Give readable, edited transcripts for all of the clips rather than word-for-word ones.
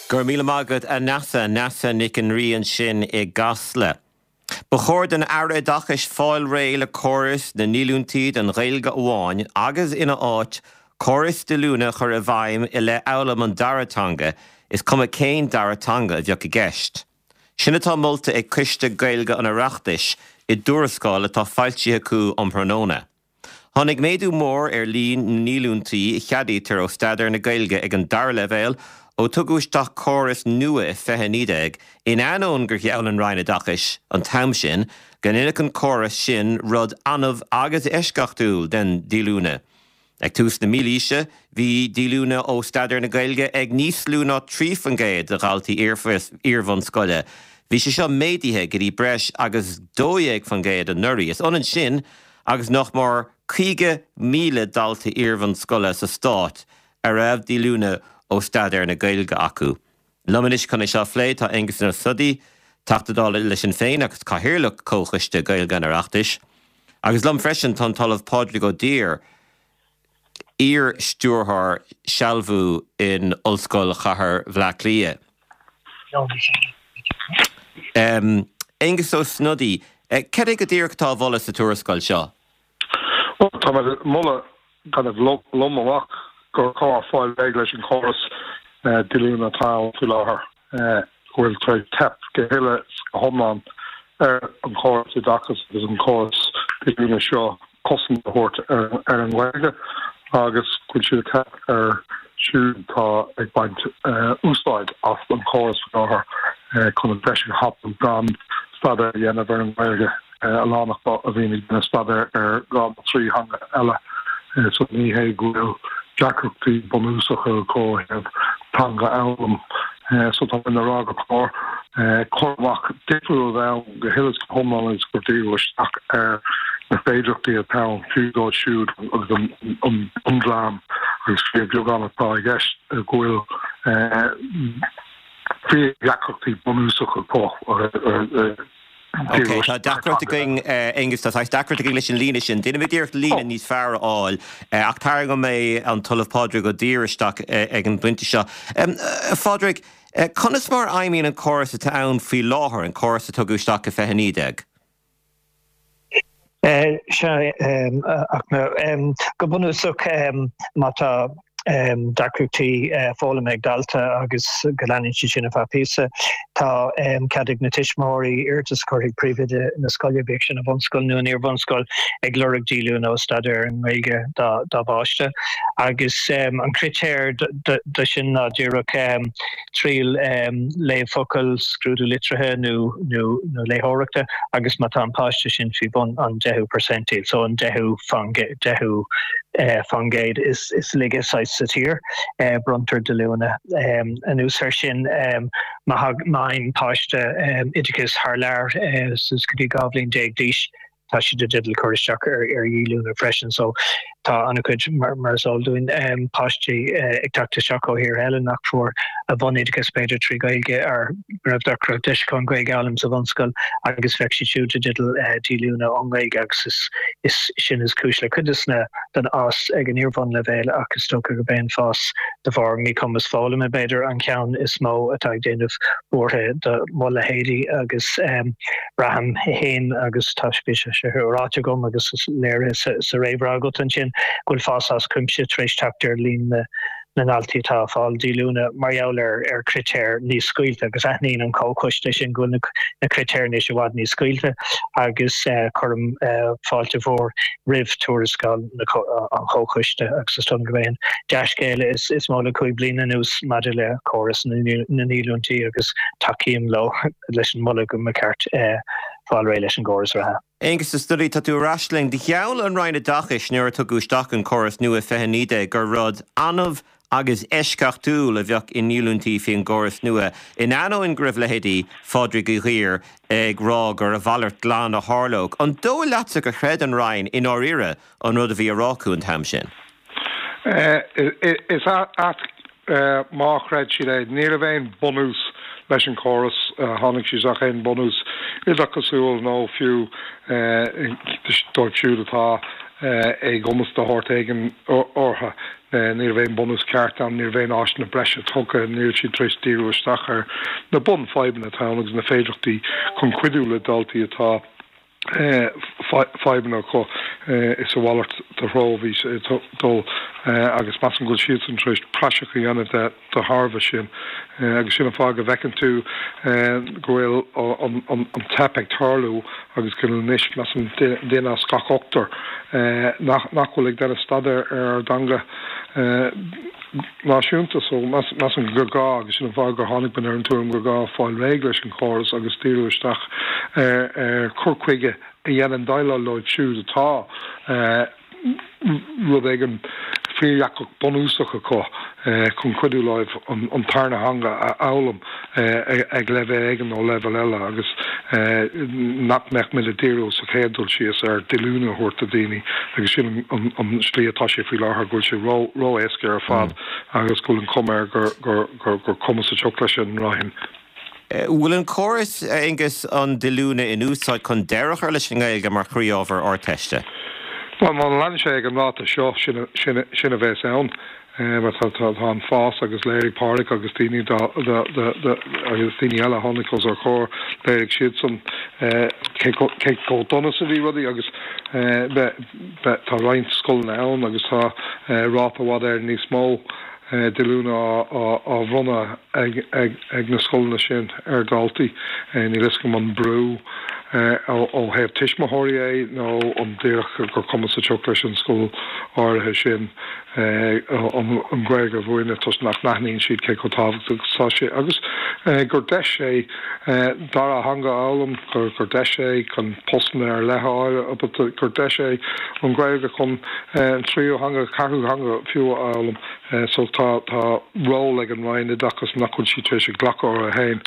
Go raibh míle maith agat, a Neasa. Neasa Nic an Rí ansin i gCasla. Ba chóir don Aire Oideachais fáil réidh le córas na ndíolúintí don Ghaeilge amháin agus ina áit, córas díolúine a chur i bhfeidhm i leith fhoghlaim an dara teanga, is cuma cén dara teanga a bheadh i gceist. Sin atá molta ag Coiste Gaeilge an Oireachtais i dtuarascáil atá foilsithe acu um thráthnóna. Tháinig méadú mór ar líon na ndíolúintí a cheadaítear ó staidéar na Gaeilge ag an dara leibhéal ó tugadh isteach córas nua i 2019, in ainneoin gur gheall an Roinn Oideachais an t-am sin go ndéanfadh an córas sin rud annamh agus eisceachtúil den díolúine. Ag tús na mílaoise, bhí díolúine ó staidéar na Gaeilge ag níos lú ná 3% de dhaltaí iar-bhunscoile. Bhí sé seo méadaithe go dtí breis agus 12% anuraidh. Is ionann sin agus nach mór 50,000 dalta iar-bhunscoile sa stát a raibh díolúine ó staidéar na Gaeilge acu. Liom anois chun é seo a phlé tá Aengus Ó Snodaigh, Teachta Dála le Sinn Féin agus Cathaoirleach Chomhchoiste Gaeilge an Oireachtais. Agus liom freisin tá an tOllamh Pádraig Ó Duibhir, iar-stiúrthóir sealbhú in Ollscoil Chathair Bhaile Átha Cliath. Aengus Ó Snodaigh, cad é go díreach atá á mholadh sa tuarascáil seo? Bhuel, tá mé ag moladh kind of lom amach gur chóir fáil réidh leis an chóras díolúine atá ann faoi láthair, go bhfuil tar éis teip go huile is go hiomlán ar an chóras oideachais agus an córas díolúine seo cosaint a thabhairt ar an nGaeilge agus go bhfuil siad ag teip ar siúd atá ag baint úsáid as an chóras faoi láthair chun an deis a thapú gan staidéar a dhéanamh ar an nGaeilge. a lán acu a bhíonn ag déanamh staidéir ar dhá nó trí theanga eile so ní hé go bhfuil deacrachtaí bunúsacha acu ó thaobh teanga a fhoghlaim. So tá mé ag rá gur chóir cur amach difriúil a bheith ann go huile is go hiomlán agus gur díriú isteach ar na féidearthachtaí atá ann fiú dóibh siúd agus an bundream agus fíorbheagán atá i gceist go bhfuil fíordheacrachtaí bunúsacha acu. Ok, tá deacracht againn, Aengus, tá saghas deacracht againn leis an líne sin. Déanfaimid iarracht líne níos fearr a fháil, ach tarraingeoidh mé an tOllamh Pádraig Ó Duibhir isteach ag an bpointe seo. A Phádraig, conas mar a fheidhmíonn an córas atá ann faoi láthair, an córas a tugadh isteach i 2019? Sea, ach go bunúsach, má tá deacrachtaí foghlama ag dalta agus go leanann siad sin ar feadh píosa, tá cead ag na tuismitheoirí iarratas a chur chuig príomhoide na scoile, bíodh sin i bhunscoil nó in iarbhunscoil, ag lorg díolúine ó staidéar ar an nGaeilge dá bpáiste. Agus an critéar do sin ná díreach triail léamh focal, scrúdú litrithe nó nó léitheoireachta agus má tá an páiste sin faoi bhun an deichiú percentile, so an deichiú faoin gcéad is laige saghas sa tír, bronntar díolúine. Anuas air sin, má fhaigheann páiste oideachas thar lear suas go dtí 12 bhliain d'aois, tá siad i dteideal cur isteach ar dhíolúine freisin. So tá an-chuid, mar is eol dúinn, páistí ag teacht isteach ó thíortha eile nach fuair a bhunoideachas b'fhéidir trí Ghaeilge ar go raibh deacracht deis acu an Ghaeilge a fhoghlaim sa bhunscoil agus bheadh siad siúd i dteideal díolúine ón nGaeilge agus is sin is cúis le cuid des na den fhás ag an iarbhunleibhéal ach is dócha gurb é an fás de bharr míchumas foghlama b'fhéidir an ceann is mó atá ag déanamh buartha do mo leithéidí agus Braithim féin, agus tá bhí sé seo ráite agam agus is léirithe sa réamhrá agat ansin, go bhfuil fás as cuimse tar éis teacht ar líon na ndaltaí atá ag fáil díolúine mar gheall ar chritéir níos scaoilte agus aithníonn an Comhchoiste sin go bhfuil na critéir anois i bhfad níos scaoilte agus cuirim fáilte mhór roimh tuarascáil an Chomhchoiste agus is dóigh liom gurb é an dea-scéal is mó le 5 bliana anuas maidir le córas na ndíolúintí agus tacaím leo. leis an moladh go mba cheart fáil réidh leis an gcóras reatha. Aengus Ó Snodaigh, tá tú ar ais linn. Gheall an Roinn Oideachais nuair a tugadh isteach an córas nua i 2019 gur rud annamh agus eisceachtúil a bheadh i ndíolúintí faoin gcóras nua, in ainneoin go raibh leithéidí Phádraig Uí Dhuibhir ag rá gur a mhalairt glan a tharlódh. An dóigh leatsa gur chreid an Roinn i ndáiríre an rud a bhí á rá acu an t-am sin? Is ait má chreid siad é. Ní raibh aon bunús leis an chóras, tháinig siad isteach aon bunús oideachasúil nó fiú dóibh siúd atá éagumas de shórt éigin orthu. Ní raibh aon bunús ceart ann, ní raibh aon áiseanna breise tugtha, ní raibh siad tar éis díriú isteach ar na bunfhadhbanna atá ann agus na féidearthachtaí chun cuidiú le daltaí atá fadhbanna acu. Is a mhalairt de threo a bhí sé ag dul agus measaim go bhfuil siadsan tar éis praiseach a dhéanamh de de thairbhe sin. Agus sin an fáth go bhfeiceann tú go bhfuil an teip ag tarlú agus go bhfuil anois, measaim, duine as gach ochtar nach bhfuil ag déanamh staidéar ar ár dteanga náisiúnta. So, measaim gur gá, agus sin an fáth gur tháinig muid ar an tuairim gur gá fáil réidh leis an chóras agus díriú isteach ar chur chuige a dhéanann déileáil leo siúd atá rud éigin fíordheacair bunúsach acu chun cuidiú leo an tarna theanga a fhoghlaim ag leibhéal éigin nó leibhéal eile agus nach mbeadh muid ag díriú sa chéad dul síos ar díolúine a thabhairt do dhaoine agus sin an slí atá sé faoi láthair, go bhfuil sé ró-éasca ar fad agus go bhfuil an chuma air gur cuma sa tsioc leis an Roinn. Bhfuil an córas, a Aonghus, an díolúine in úsáid chun deireadh a chur leis an nGaeilge mar chroí-ábhar Ardteiste? Bhuel, má leanann sé ag an ráta seo, sin a bheas ann. Mar tá an fás agus léirigh Pádraig agus daoine agus daoine eile a tháinig os ár gcomhair, léirigh siadsan cé chomh dona is a bhí rudaí agus tá roinnt scoileanna ann agus tá ráta i bhfad Éireann níos mó díolúine á bhronnadh ag na scoileanna sin ar dhaltaí. Níl fhios agam an brú ó thaobh tuismitheoirí é nó an díreach gur cuma sa tsioc leis an scoil áirithe sin an Ghaeilge a mhúineadh toisc nach n-aithníonn siad cé chomh tábhachtach is atá sé agus gur deis é dara theanga a fhoghlaim, gur deis é chun postanna ar leith a fháil, gur deis é an Ghaeilge chun an tríú theanga, ceathrú theanga fiú a fhoghlaim. So tá tá ról ag an Roinn Oideachais nach bhfuil sí tar éis a ghlacadh uirthi féin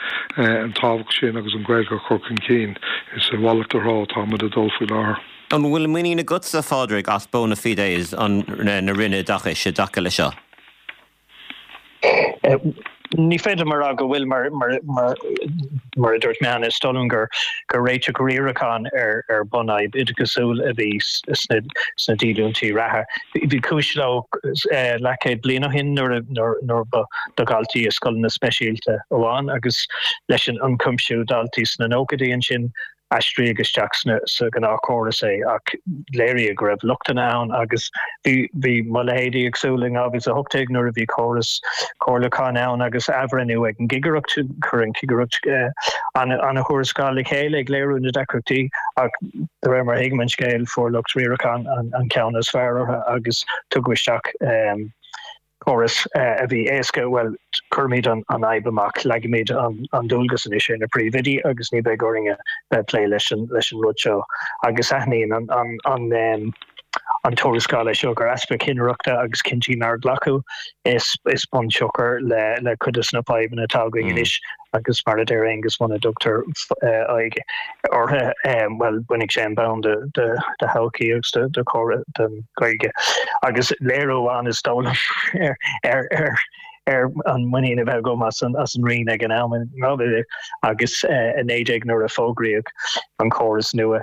an tábhacht sin agus an Ghaeilge a chur chun cinn. Is a mhalairt de threo atá muid ag dul faoi láthair. An bhfuil muinín agatsa, a Phádraig, as bona fides an na Roinne Oideachais i dtaca leis seo? Ní féidir liom a rá go bhfuil, mar mar a dúirt mé cheana, is dóigh liom gur gur réiteach riaracháin ar ar bunfhadhb oideachasúil a bhí sna sna díolúintí reatha. Bhí cúis leo leathchéad bliain ó shin nuair a nuair ba do dhaltaí i scoileanna speisialta amháin agus leis an ionchuimsiú daltaí sna nóchaidí ansin aistríodh isteach sa ghnáthchóras é ach léiríodh go raibh lochtanna ann agus bhí bhí mo leithéidí ag súil in 2018 nuair a bhí córas comhairliúcháin ann agus athbhreithniú ag an gcigireacht, chuir an chigireacht an-thuarascáil le chéile ag léiriú na deacrachtaí ach de réir mar a thuigim an scéal fuair lucht riaracháin an ceann is fearr orthu agus tugadh isteach córas a bhí éasca, bhuel, cuirimid an fhadhb amach, leagaimid an dualgas anois ar na príomhoidí agus ní bheidh orainn a bheith ag plé leis an rud seo. Agus aithníonn an tuarascáil é seo gur easpa cinnireachta agus cinntí nár glacadh is bunsiocair le cuid de na fadhbanna atá againn anois. Agus mar a deir Aengus, muna dtugtar aghaidh orthu, bhuel, bainfidh sé an bonn de thodhchaí agus de chóras den Ghaeilge. Agus léiriú amháin is dóigh liom ar ar an muinín a bheith agam as an Roinn ag an am in 2019 nuair a fógraíodh an córas nua,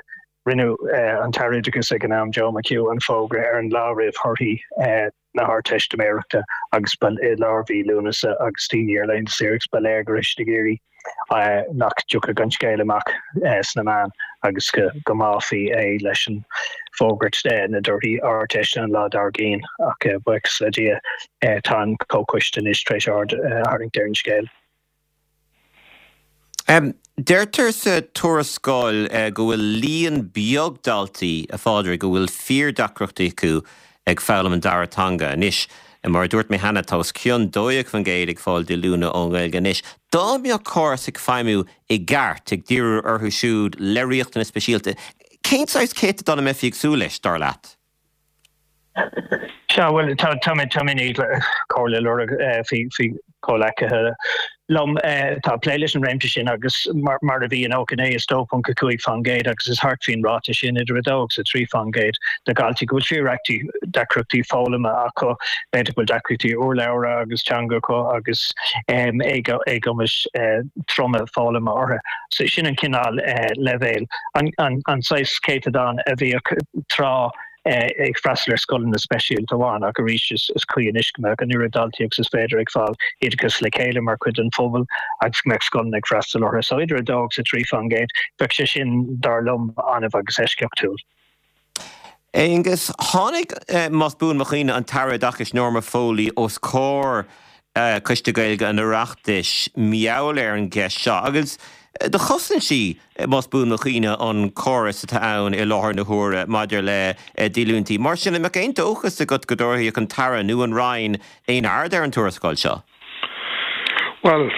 Rinne an tAire Oideachais ag an am, Joe McHugh, an fógra ar an lá roimh thorthaí na hArdteistiméireachta agus ba i lár mhí Lúnasa agus daoine ar laethanta saoire agus ba léir go raibh siad ag iarraidh nach dtiocfadh an scéal amach sna meáin agus go mbáfaí é leis an bhfógairt na dtorthaí Ardteiste an lá dár gcionn ach buíochas le Dia tá an Comhchoiste anois tar éis aird a tharraingt ar an scéal. Deirtear sa tuarascáil go bhfuil líon beag daltaí, a Phádraig, a bhfuil fíordheacrachtaí acu ag foghlaim an dara teanga. Anois, mar a dúirt mé cheana, tá os cionn 12% ag fáil díolúine ón nGaeilge anois. Dá mbeadh córas ag feidhmiú i gceart, ag díriú orthu siúd le riachtanais speisialta, cén saghas céatadán a mbeifí ag súil leis, dar leat? Sea, bhuel, tá tá mé tá mé i ndiaidh comhairle a lorg faoi faoi chomhleacaithe liom atá ag plé leis an réimse sin agus mar mar a bhí in 99 is 2.5% agus is thart faoin ráta sin idir 2 agus 3% de dhaltaí go bhfuil fíordheacrachtaí deacrachtaí foghlama acu, b'fhéidir go bhfuil deacrachtaí urlabhra agus teanga acu agus éagumais troma foghlama orthu. So sin an cineál leibhéil, an an saghas céatadán a bhíodh tráth. ag freastal ar scoileanna speisialta amháin ach arís is cuí anois go mbeadh an oiread daltaí agus is féidir ag fáil oideachas le chéile mar chuid den phobal agus go mbeadh scoileanna ag freastal orthu. So idir 2 agus 3%, bheadh sé sin, dar liom, annamh agus eisceachtúil. Aonghus, tháinig, más buan mo chuimhne, an tAire Oideachais Norma Foley os comhair Coiste Gaeilge an Oireachtais mar gheall ar an gceist seo agus do chosain sí, más buan mo chuimhne, an córas atá ann i láthair na huaire maidir le díolúintí. Mar sin, an mbeadh aon dóchas agat go dtabharfadh an tAire nó an Roinn aon aird ar an tuarascáil seo? Bhuel,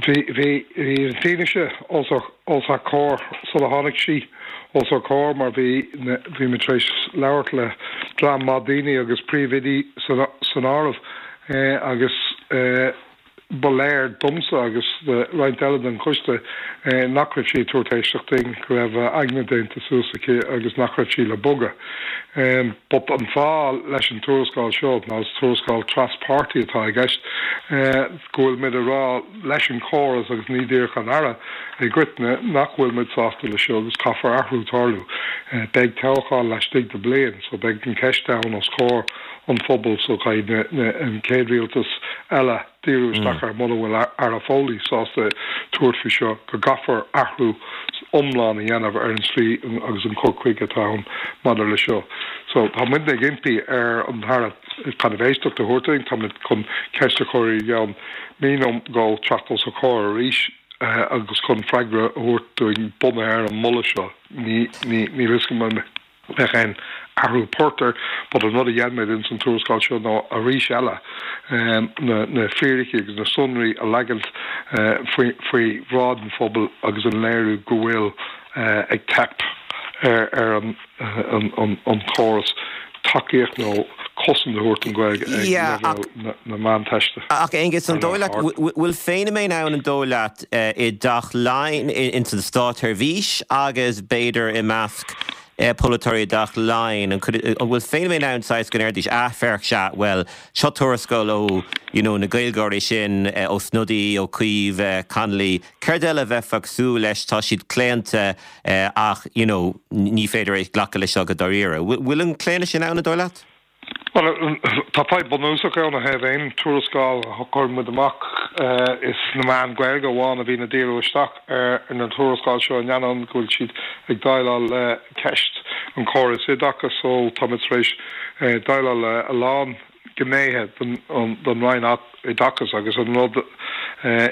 bhí, bhí, bhí an fianaise os ár, os ár comhair sula tháinig sí os ár comhair mar bhí, bhí muid tar éis labhairt le dream maith daoine agus príomhoidí san, san áireamh agus ba léir domsa agus do roinnt eile den choiste nach raibh sí ag tabhairt éisteacht dúinn, go raibh a aigne déanta suas aici agus nach raibh sí le bogadh. But an fáth leis an tuarascáil seo ná is tuarascáil tras-pháirtí atá i gceist, go bhfuil muid ag rá leis an chóras agus ní díreach an Aire i gcoitinne nach bhfuil muid sásta leis seo agus caithfear athrú tarlú. Beidh toghchán laistigh de bliain so beidh an ceist ann os comhair an phobail so caithfidh an chéad rialtas eile díriú isteach air mura bhfuil Aire Foley sásta tabhairt faoi seo, go gcaithfear athrú iomlán a dhéanamh ar an slí agus an cur chuige atá ann maidir le seo. So tá muidne ag impí ar an Aire kind of éisteacht a thabhairt dúinn, tá muid chun ceist a chur i gceann mí nó dhó teacht os a chomhair arís agus chun freagra a thabhairt dúinn bunaithe ar an moladh seo. Ní, ní, níl fhios agam an. mbeadh aon athrú poirt air but an rud a dhein muid ins an tuarascáil seo ná arís eile na na fíricí agus na sonraí a leagaint faoi faoi bhráid an phobail agus an léiriú go bhfuil ag teip ar ar an an an chóras tacaíocht nó cosaint a thabhairt don Ghaeilge ag leibhéal na na Meánteiste. Ach Aonghus, an dóigh leat, bhfuil feiniméan ann an dóigh leat i dTeach Laighean, ins an státsheirbhís agus b'fhéidir i measc polaiteoirí i dTeach Laighean, an bhfuil feiniméan ann saghas go ndéarfaidís, ah féach, sea, bhuel, seo tuarascáil ó, you know, na Gaeilgeoirí sin, Ó Snodaigh, Ó Cuív, Connolly, céard eile a bheifeá ag súil leis, tá siad claonta ach, you know, ní féidir é glacadh leis seo go dáiríre. Bhfuil an claonadh sin ann, an dóigh leat? Bhuel, tá fadhb bunúsach ann ó thaobh aon tuarascáil a chuireann muid amach. Is na meáin Ghaeilge amháin a bhíonn ag díriú isteach ar na tuarascáil seo in ainneoin go bhfuil siad ag déileáil le ceist an chórais oideachais so tá muid tar éis déileáil le a lán gnéithe den Roinn Oideachais agus an rud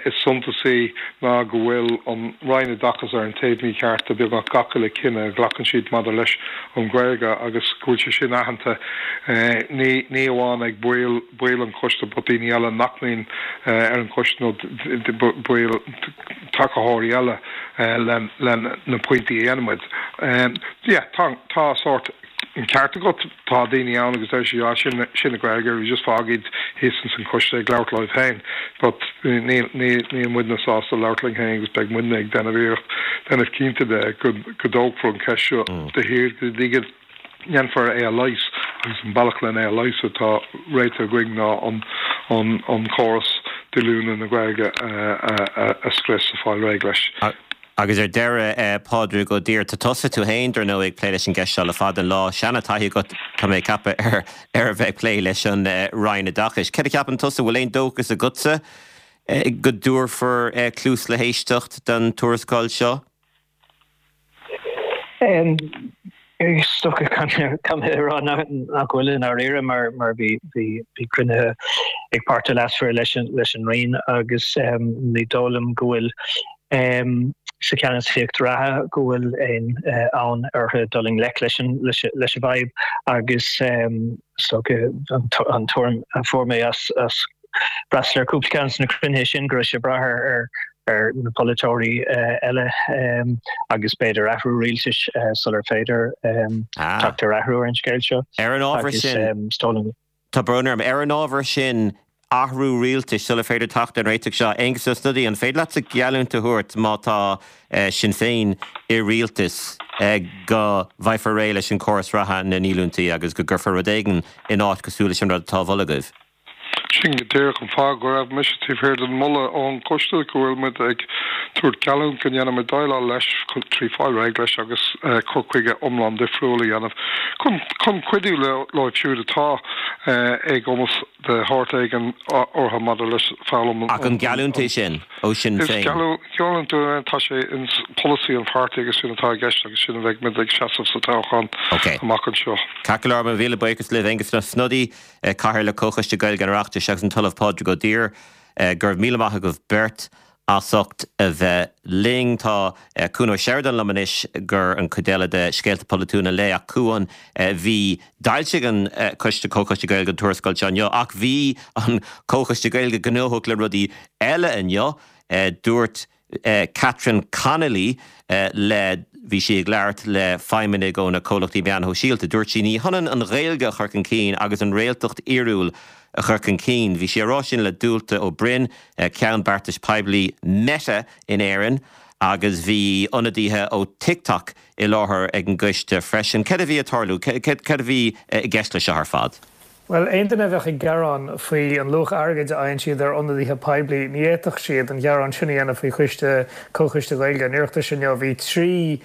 is suntasaí ná go bhfuil an Roinn Oideachais ar an taobh mícheart de beagnach gach uile cinneadh a ghlacann siad maidir leis an Ghaeilge agus go bhfuil sé sin aitheanta ní ní amháin ag baill baill an choiste but daoine eile nach mbíonn ar an choiste nó baill tacaitheoirí eile le le na pointí a dhéanann muid. Yeah, tá tá sórt An ceart agat, tá daoine ann agus deir siad, ah, sin, sin na Gaeilgeoirí, just fág iad thíos ins an choiste ag labhairt leo féin. But níl, níl, níl muidne sásta labhairt linn féin agus beidh muidne ag déanamh iarracht, déanamh cinnte de go, go dtógfar an cheist seo de shíor go dtí go ndéanfar é a leigheas agus an bealach len é a leigheas atá réitithe againn ná an, an, an córas díolúine na Gaeilge a, a, a, a scrios, a fáil réidh leis. Agus ar deireadh, Pádraig Ó Duibhir, tá tusa tú féin, dar ndóigh, ag plé leis an gceist seo le fada an lá. Seana-taithí agat, tá mé ag ceapadh, ar ar a bheith ag plé leis an Roinn Oideachais. Céard a cheapann tusa, bhfuil aon dóchas agatsa go dtabharfar cluas le héisteacht don tuarascáil seo? Is dócha caithfidh mé a rá nach bhfuil i ndáiríre mar mar bhí bhí bhí cruinnithe ag páirtithe leasmhara leis an leis an Roinn agus ní dóigh liom go bhfuil sa cheannasaíocht reatha go bhfuil aon fhonn orthu dul i ngleic leis an leis leis an bhfadhb agus is dócha an tuairim a fuair mé as as freastal ar cúpla ceann de na cruinnithe sin go raibh sé ag brath ar ar na polaiteoirí eile agus b'fhéidir athrú rialtais sular féidir teacht ar athrú ar an scéal seo. Ar an ábhar sin, tá brón orm, ar an ábhar sin, athrú rialtais sular féidir teacht ar an réiteach seo, Aengus Ó Snodaigh, an féidir leatsa geallúint a thabhairt má tá Sinn Féin i rialtas go bhfaighfear réidh leis an córas reatha na ndíolúintí agus go gcuirfear rud éigin in áit cosúil leis an rud atá á mholadh agaibh? Sin go díreach an fáth go raibh mise taobh thiar den mholadh ón gcoiste go bhfuil muid ag tabhairt geallúint go ndéanfaimid déileáil leis trí fáil réidh leis agus cur chuige iomlán difriúil a dhéanamh chun chun cuidiú leo siúd atá éagumas de shórt éigin orthu maidir leis foghlaim an Ach an geallúint é sin ó Shinn Féin? Is geallúint é, tá sé in polasaí an pháirtí agus sin atá i gceist agus sin a bheidh muid ag seasamh sa toghchán amach anseo. Ceart go leor, mo mhíle buíochas libh, Aengus Ó Snodaigh, Cathaoirleach Comhchoiste Gaeilge an Oireachtais agus an tOllamh Pádraig Ó Duibhir. Go raibh míle maith agaibh beirt as ucht a bheith linn. Tá Cuan Ó Seireadáin liom anois gur an chuid eile de Scéalta Polaitiúla an Lae ach Cuan, bhí, d'fhoilsigh an Coiste, Comhchoiste Gaeilge an tuarascáil seo inniu ach bhí an Comhchoiste Gaeilge gnóthach le rudaí eile inniu. Dúirt Catherine Connolly le, bhí sí ag labhairt le feidhmeannaigh ó na comhlachtaí meáin shóisialta, dúirt sí, ní hionann an Ghaeilge a chur chun cinn agus an réaltacht fhíorúil a chur chun cinn. Bhí sí á rá sin le Dualta Ó Broin, Ceann Beartais Poiblí Meta in Éirinn agus bhí ionadaithe ó TikTok i láthair ag an gcoiste freisin. Céard a bhí ag tarlú? Céard a bhí i gceist leis seo ar fad? Bhuel, aon duine a bheadh ag gearán faoi an luach airgid a fhaigheann siad ar ionadaithe poiblí, ní fhéadfadh siad an gearán sin a dhéanamh faoi choiste, Comhchoiste Gaeilge an Oireachtais inniu. Bhí 3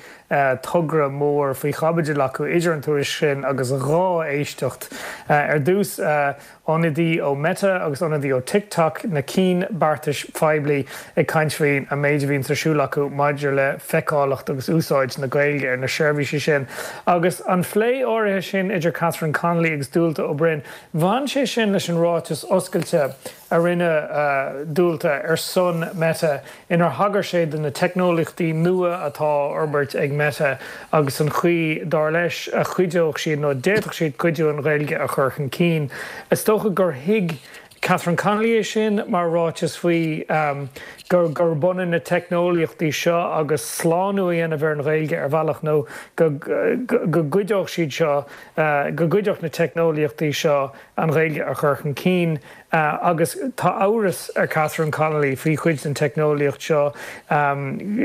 togra mór faoi chaibidil acu idir an tuairisc sin agus 2 éisteacht. Ar dtús, ionadaí ó Meta agus ionadaí ó TikTok, na cinn beartais phoiblí, ag caint faoin an méid a bhíonns ar siúl acu maidir le feiceálacht agus úsáid na Gaeilge ar na seirbhísí sin. Agus an phlé áirithe sin idir Catherine Connolly agus Dualta Ó Broin, bhain sé sin leis an ráiteas oscailte a rinne Dualta ar son Meta inar thagair sé do na teicneolaíochtaí nua atá á fhorbairt ag Meta agus an chaoi, dar leis, a chuideodh siad nó a d'fhéadfadh siad cuidiú an Ghaeilge a chur chun cinn. Is dócha gur thuig Catherine Connolly é sin mar ráiteas faoi gur gurb ionann na teicneolaíochtaí seo agus slánú a dhéanamh ar an Ghaeilge ar bhealach nó go go gcuideodh siad seo, go gcuideodh na teicneolaíochtaí seo an Ghaeilge a chur chun cinn. Agus tá amhras ar Catherine Connolly faoi chuid den teicneolaíocht seo.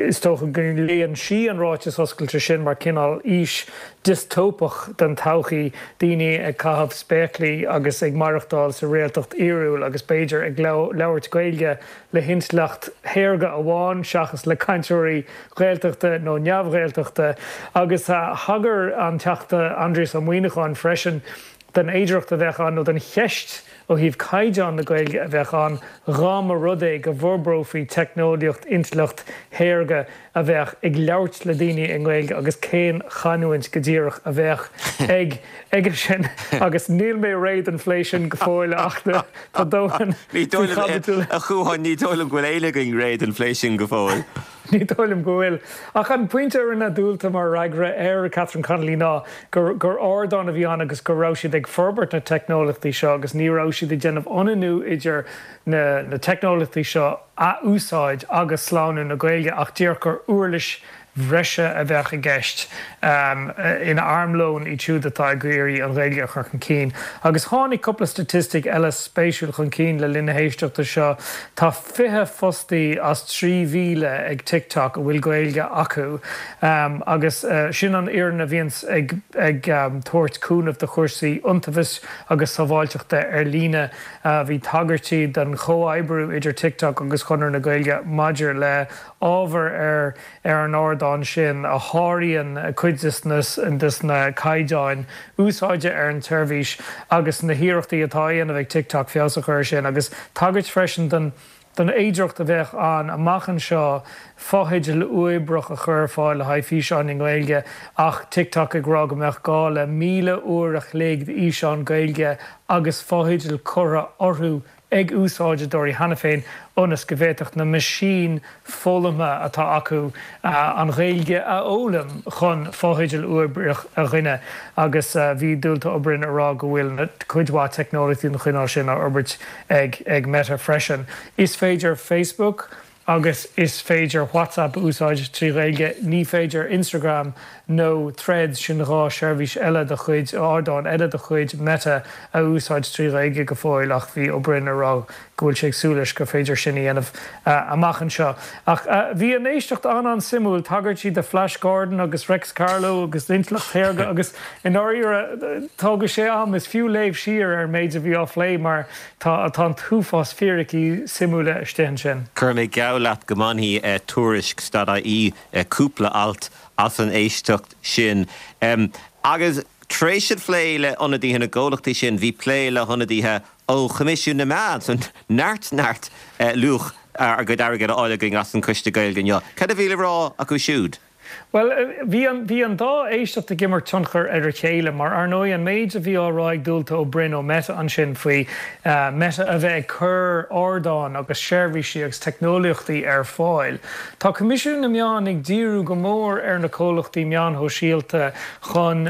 Is dócha go léann sí an ráiteas oscailte sin mar cineál fhís diostóipeach den todhchaí, daoine ag caitheamh spéaclaí agus ag maireachtáil sa réaltacht fhíorúil agus b'fhéidir ag labhairt Gaeilge le hintleacht shaorga amháin seachas le cainteoirí Gaeltachta nó neamh-Ghaeltachta. Agus thagair an Teachta Aindrias Ó Muimhneacháin freisin den fhéidearthacht a bheadh ann, nó den cheist ó thaobh caighdeán na Gaeilge a bheadh ann, dhá mba rud é go bhforbrófaí teicneolaíocht intleacht shaorga a bheadh ag labhairt le daoine i nGaeilge agus cén chanúint go díreach a bheadh ag aige sin. Agus níl mé réidh don phlé sin go fóill ach tá dóthain faoi chaibidil. A Chuain, ní dóigh liom go bhfuil éinne againn réidh don phlé sin go fóill. Ní dóigh liom go bhfuil. Ach an pointe a rinne Dualta mar fhreagra ar Catherine Connolly ná gur gur ardán a bhí ann agus go raibh siad ag forbairt na teicneolaíochtaí seo agus ní raibh siad ag déanamh ionannú idir na na teicneolaíochtaí seo a úsáid agus slánú na Gaeilge ach díreach gur uirlis bhreise a bheadh i gceist ina armlón iad siúd atá ag iarraidh an Ghaeilge a chur chun cinn. Agus tháinig cúpla staitistic eile spéisiúil chun cinn le linn na héisteachta seo. Tá 20 fostaí as 3,000 ag TikTok a bhfuil Gaeilge acu agus sin an fhoireann a bhíonns ag ag tabhairt cúnamh do chúrsaí iontaobhais agus sábháilteachta ar líne. Bhí tagairtí don chomhoibriú idir TikTok agus Chonradh na Gaeilge maidir le ábhar ar ar an ardán sin a sháraíonn cuid des na caighdeáin úsáide ar an tseirbhís agus na hiarrachtaí atá á dhéanamh ag TikTok feabhas a chur air sin agus tagairt freisin don don fhéidearthacht a bheadh ann amach anseo fotheidil uathoibríoch a chur ar fáil le haghaidh físeáin i nGaeilge ach TikTok ag rá go mbeadh gá le 1,000 uair a chloig d'fhíseáin Gaeilge agus fotheidil curtha orthu ag úsáideoirí cheana féin ionas go bhféadfadh na meaisín foghlamtha atá acu an Ghaeilge a fhoghlaim chun fotheidil uathoibríoch a ghineadh agus bhí Dualta Ó Broin ag rá go bhfuil cuid mhaith teicneolaíochtaí den chineál sin á fhorbairt ag Meta freisin. Is féidir Facebook. agus is féidir WhatsApp a úsáid trí Ghaeilge. Ní féidir Instagram nó Threads, sin 2 sheirbhís eile de chuid, ardán eile de chuid Meta, a úsáid trí Ghaeilge go fóill ach bhí Ó Broin ag rá go bhfuil sé ag súil leis gur féidir sin a dhéanamh amach anseo. Ach bhí an éisteacht an-an-suimiúil, tagairtí do Flash Gordon agus Réics Carló agus intleacht shaorga agus i ndáiríre tógfaidh sé am, is fiú léamh siar ar an méid a bhí á phlé mar tá tá an t-uafás fíricí suimiúla istigh ansin. Cuirfidh mé geall leat go mbainfidh Tuairisc stad-IE cúpla alt as an éisteacht sin. Agus tar éis an phlé le hionadaithe na gcomhlachtaí sin, bhí plé le hionadaithe ó Choimisiún na Meán, so neart neart luach ár gcuid airgid á fháil againn as an Choiste Gaeilge inniu. Cad a bhí le rá acu siúd? Bhuel, bhí an, bhí an dá éisteacht ag imirt tionchar ar a chéile mar, ar ndóigh, an méid a bhí á rá ag Dualta Ó Broin ó Meta ansin faoi Meta a bheith ag cur ardáin agus seirbhísí agus teicneolaíochtaí ar fáil. Tá Coimisiún na Meán ag díriú go mór ar na comhlachtaí meáin shóisialta chun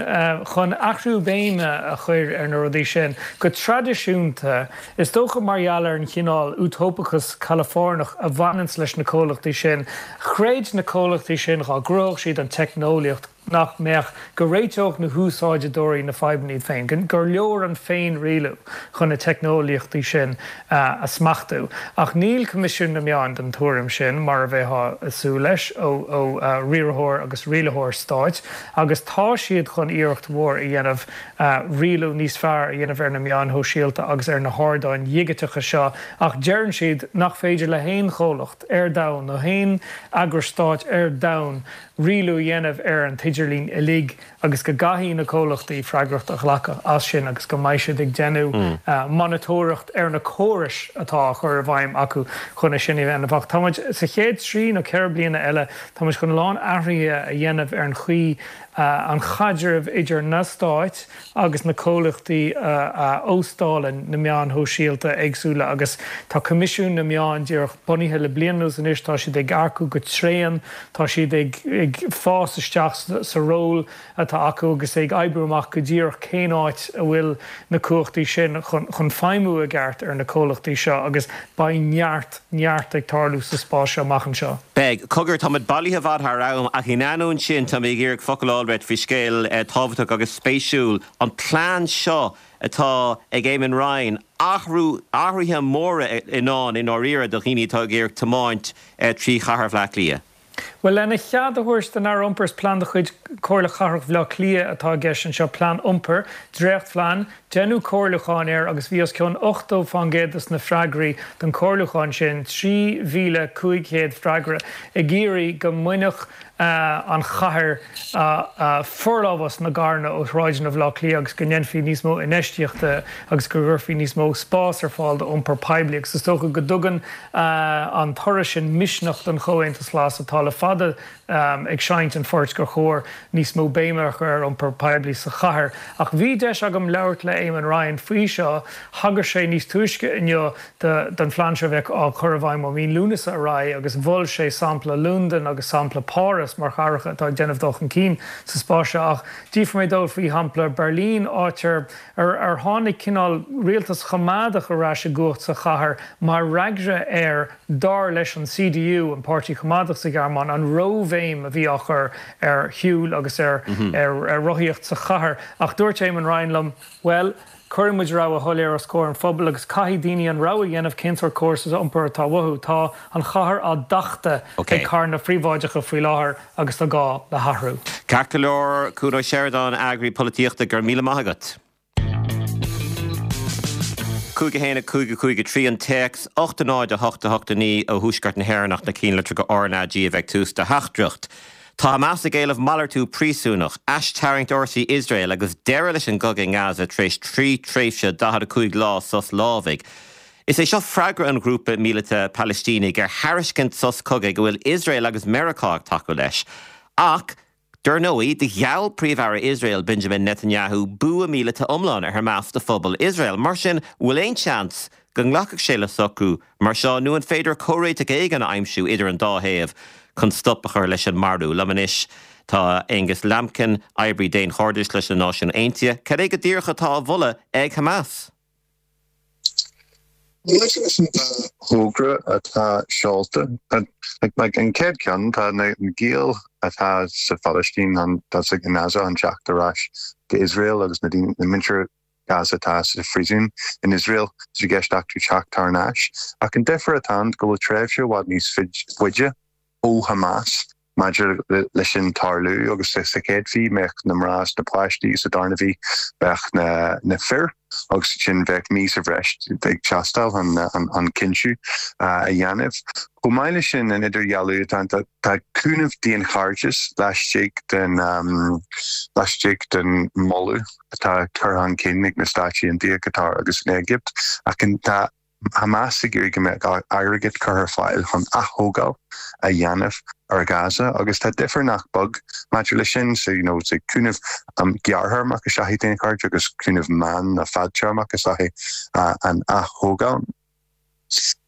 chun athrú béime a chur ar na rudaí sin. Go traidisiúnta, is dócha mar gheall ar an chineál útóipeachas Calafoirneach a bhaineanns leis na comhlachtaí sin, chreid na comhlachtaí sin dhá gcruthódh siad an teicneolaíocht nach mbeadh, go réiteodh na húsáideoirí na fadhbanna iad féin, gur leor an féinrialú chun na teicneolaíochtaí sin a smachtú. Ach níl Coimisiún na Meán den tuairim sin, mar a bheifeá ag súil leis ó riarthóir agus rialaitheoir stáit, agus tá siad chun iarracht mhór a dhéanamh rialú níos fearr a dhéanamh ar na meáin shóisialta agus ar na hardáin dhigiteacha seo, ach deireann siad nach féidir le haon chomhlacht ar domhan nó haon eagras stáit ar domhan rialú a dhéanamh ar an t-idirlíon uilig agus go gcaithfidh na comhlachtaí freagracht a ghlacadh as sin agus go mbeidh siad ag déanamh monatóireacht ar na córais atá á chur i bhfeidhm acu chun é sin a dhéanamh. Ach tá muid, sa chéad trí nó 4 bliana eile, tá muid chun a lán athruithe a dhéanamh ar an chaoi an chaidreamh idir na stáit agus na comhlachtaí a óstálann na meáin shóisialta éagsúla agus tá Coimisiún na Meán díreach bunaithe le bliain anuas anois, tá siad ag earcú go tréan, tá siad ag fás isteach sa ról atá acu agus ag oibriú amach go díreach cén áit a bhfuil na cumhachtaí sin chun feidhmiú i gceart ar na comhlachtaí seo agus beidh neart, neart ag tarlú sa spás seo amach anseo. Beidh. Cogar, táimid bailithe i bhfad thar am, ach in ainneoin sin, tá mé ag iarraidh focal a fháil uait faoi scéal tábhachtach agus spéisiúil, an plean seo atá ag Eamon Ryan, athrú, athruithe móra i ndán i ndáiríre do dhaoine atá ag iarraidh tiomáint trí chathair Bhaile Átha Cliath. Bhuel, lena chead a thabhairt don Aire Iompair, is plean de chuid Chomhairle Chathrach Bhaile Átha Cliath atá i gceist anseo, plean iompair, dréachtphlean, deineadh comhairliúchán air agus bhí os cionn 80% de na freagraí don chomhairliúchán sin, 3,500 freagra, ag iarraidh go mbainfeadh an chathair forlámhas na gcarranna ó shráideanna Bhaile Átha Cliath agus go ndéanfaí níos mó infheistíochta agus go gcuirfí níos mó spás ar fáil d'iompar poiblí agus is dócha go dtugann an toradh sin misneach don Chomhaontas Glas atá le fada ag seinnt an phoirt gur chóir níos mó béime a chur ar iompar poiblí sa chathair. Ach bhí deis agam labhairt le Eamon Ryan faoi seo. Thagair sé níos túisce inniu don phlean seo a bheadh á chur i bhfeidhm ó mhí Lúnasa ar aghaidh agus mhol sé sampla Londain agus sampla Páras mar chathracha atá ag déanamh dul chun cinn sa spás seo. Ach d'fhiafraigh mé dó faoi shampla Berlin, áit ar ar tháinig cineál rialtas choimeádach ar ais i gcumhacht sa chathair mar fhreagra ar, dar leis an CDU, an páirtí coimeádach sa Ghearmáin, an róbhéim a bhí á chur ar shiúl agus ar rothaíocht sa chathair. Ach dúirt Eamon Ryan liom, bhuel, cuireann muid rogha shoiléir os comhair an phobail agus caithfidh daoine an rogha a dhéanamh cén sórt córas iompair atá uathu. Tá an chathair á tachtadh ag carranna príobháideacha faoi láthair agus tá gá le hathrú. Ceart go leor, Cuan Ó Seireadáin, Eagraí Polaitíochta, go raibh míle maith agat. 5 1 5 5 3 an téacs, 8 0 8 8 9 ó Thuaisceart na hÉireann ach na cinnlitreacha RnaG a bheith ag tús do theachtaireacht. Tá Hamas ag éileamh malartú príosúnach, aistarraingt fhórsaí Iosrael agus deireadh leis an gcogadh i nGaza tar éis 3 tréimhse 45 lá sos lámhaigh. Is é seo freagra an ghrúpa míleata Palaistínigh ar thairiscint sos cogaidh a bhfuil Iosrael agus Meiriceá ag tacú leis. Ach, dar ndóigh, do gheall Príomh-Aire Iosrael Benjamin Netanyahu bua míleata iomlán ar Hamas do phobal Iosrael. Mar sin, bhfuil aon seans go nglacfadh sé le socrú mar seo nó an féidir comhréiteach éigin a aimsiú idir an dá thaobh chun stop a chur leis an marú? Liom anois tá Angus Lambkin, oibrí daonchairdis leis na Náisiúin Aontaithe. Cad é go díreach atá á mholadh ag Hamas? Maidir leis an dá thogra atá seolta, like an chéad cheann, tá na giall atá sa Phalaistín, atá i nGaza chun teacht ar ais go Iosrael agus na daoine, na muintir Gaza atá sa phríosún in Iosrael, tá sé i gceist acu teacht thar n-ais. Ach an difear atá ann go bhfuil tréimhse i bhfad níos faide ó Hamas maidir leis sin tarlú agus sa chéad mhí bheadh na mná is na páistí, sa darna mhí bheadh na fir agus ansin bheadh mí sa bhreis ag teastáil chun an cinntiú a dhéanamh. Chomh maith leis sin, an idirdhealú atá ann, tá cúnamh daonchairdis laistigh den laistigh den moladh atá curtha chun cinn ag na Stáit Aontaithe, Qatar agus an Éigipt ach tá Hamas ag iarraidh go mbeadh airgead curtha ar fáil chun ath-thógáil a dhéanamh ar Gaza agus tá difear nach beag maidir leis sin, so you know cúnamh gearrthéarmach is ea daonchairdeas agus cúnamh meán nó fadtéarmach is ea an ath-thógáil.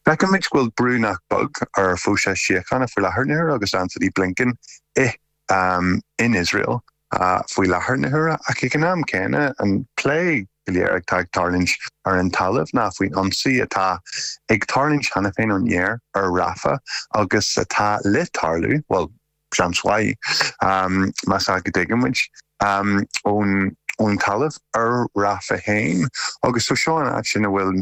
Feicimid go bhfuil brú nach beag ar phróiseas síochána faoi láthair na huaire agus Antony Blinken i in Iosrael faoi láthair na huaire ach ag an am céanna an plé go léir atá ag tarlúint ar an talamh ná faoin ionsaí atá ag tarlúint cheana féin ón aer ar Rafah agus atá le tarlú, bhuel, seans mhaith, más ea go dtuigeann muid, ón talamh ar Rafah féin. Agus so seo an áit ina bhfuil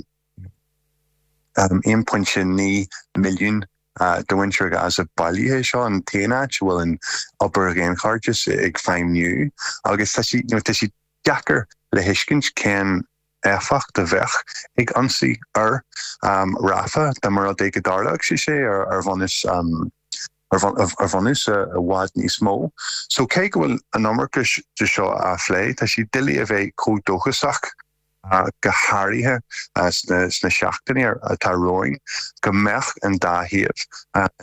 1.9 milliún de mhuintir Ghaza bailithe. Seo an t-aon áit a bhfuil an obair dhaonchairdis ag feidhmiú agus tá sé, you know, tá sé deacair le thuiscint cén éifeacht a bheadh ag ionsaí ar Rafah dá mba rud é go dtarlódh sé sé ar bhunús ar bhunús i bhfad níos mó. So cé go bhfuil an iomarca de seo á phlé, tá sé doiligh a bheith chomh dóchasach go háirithe sna seachtainí atá romhainn, go mbeadh an dá thaobh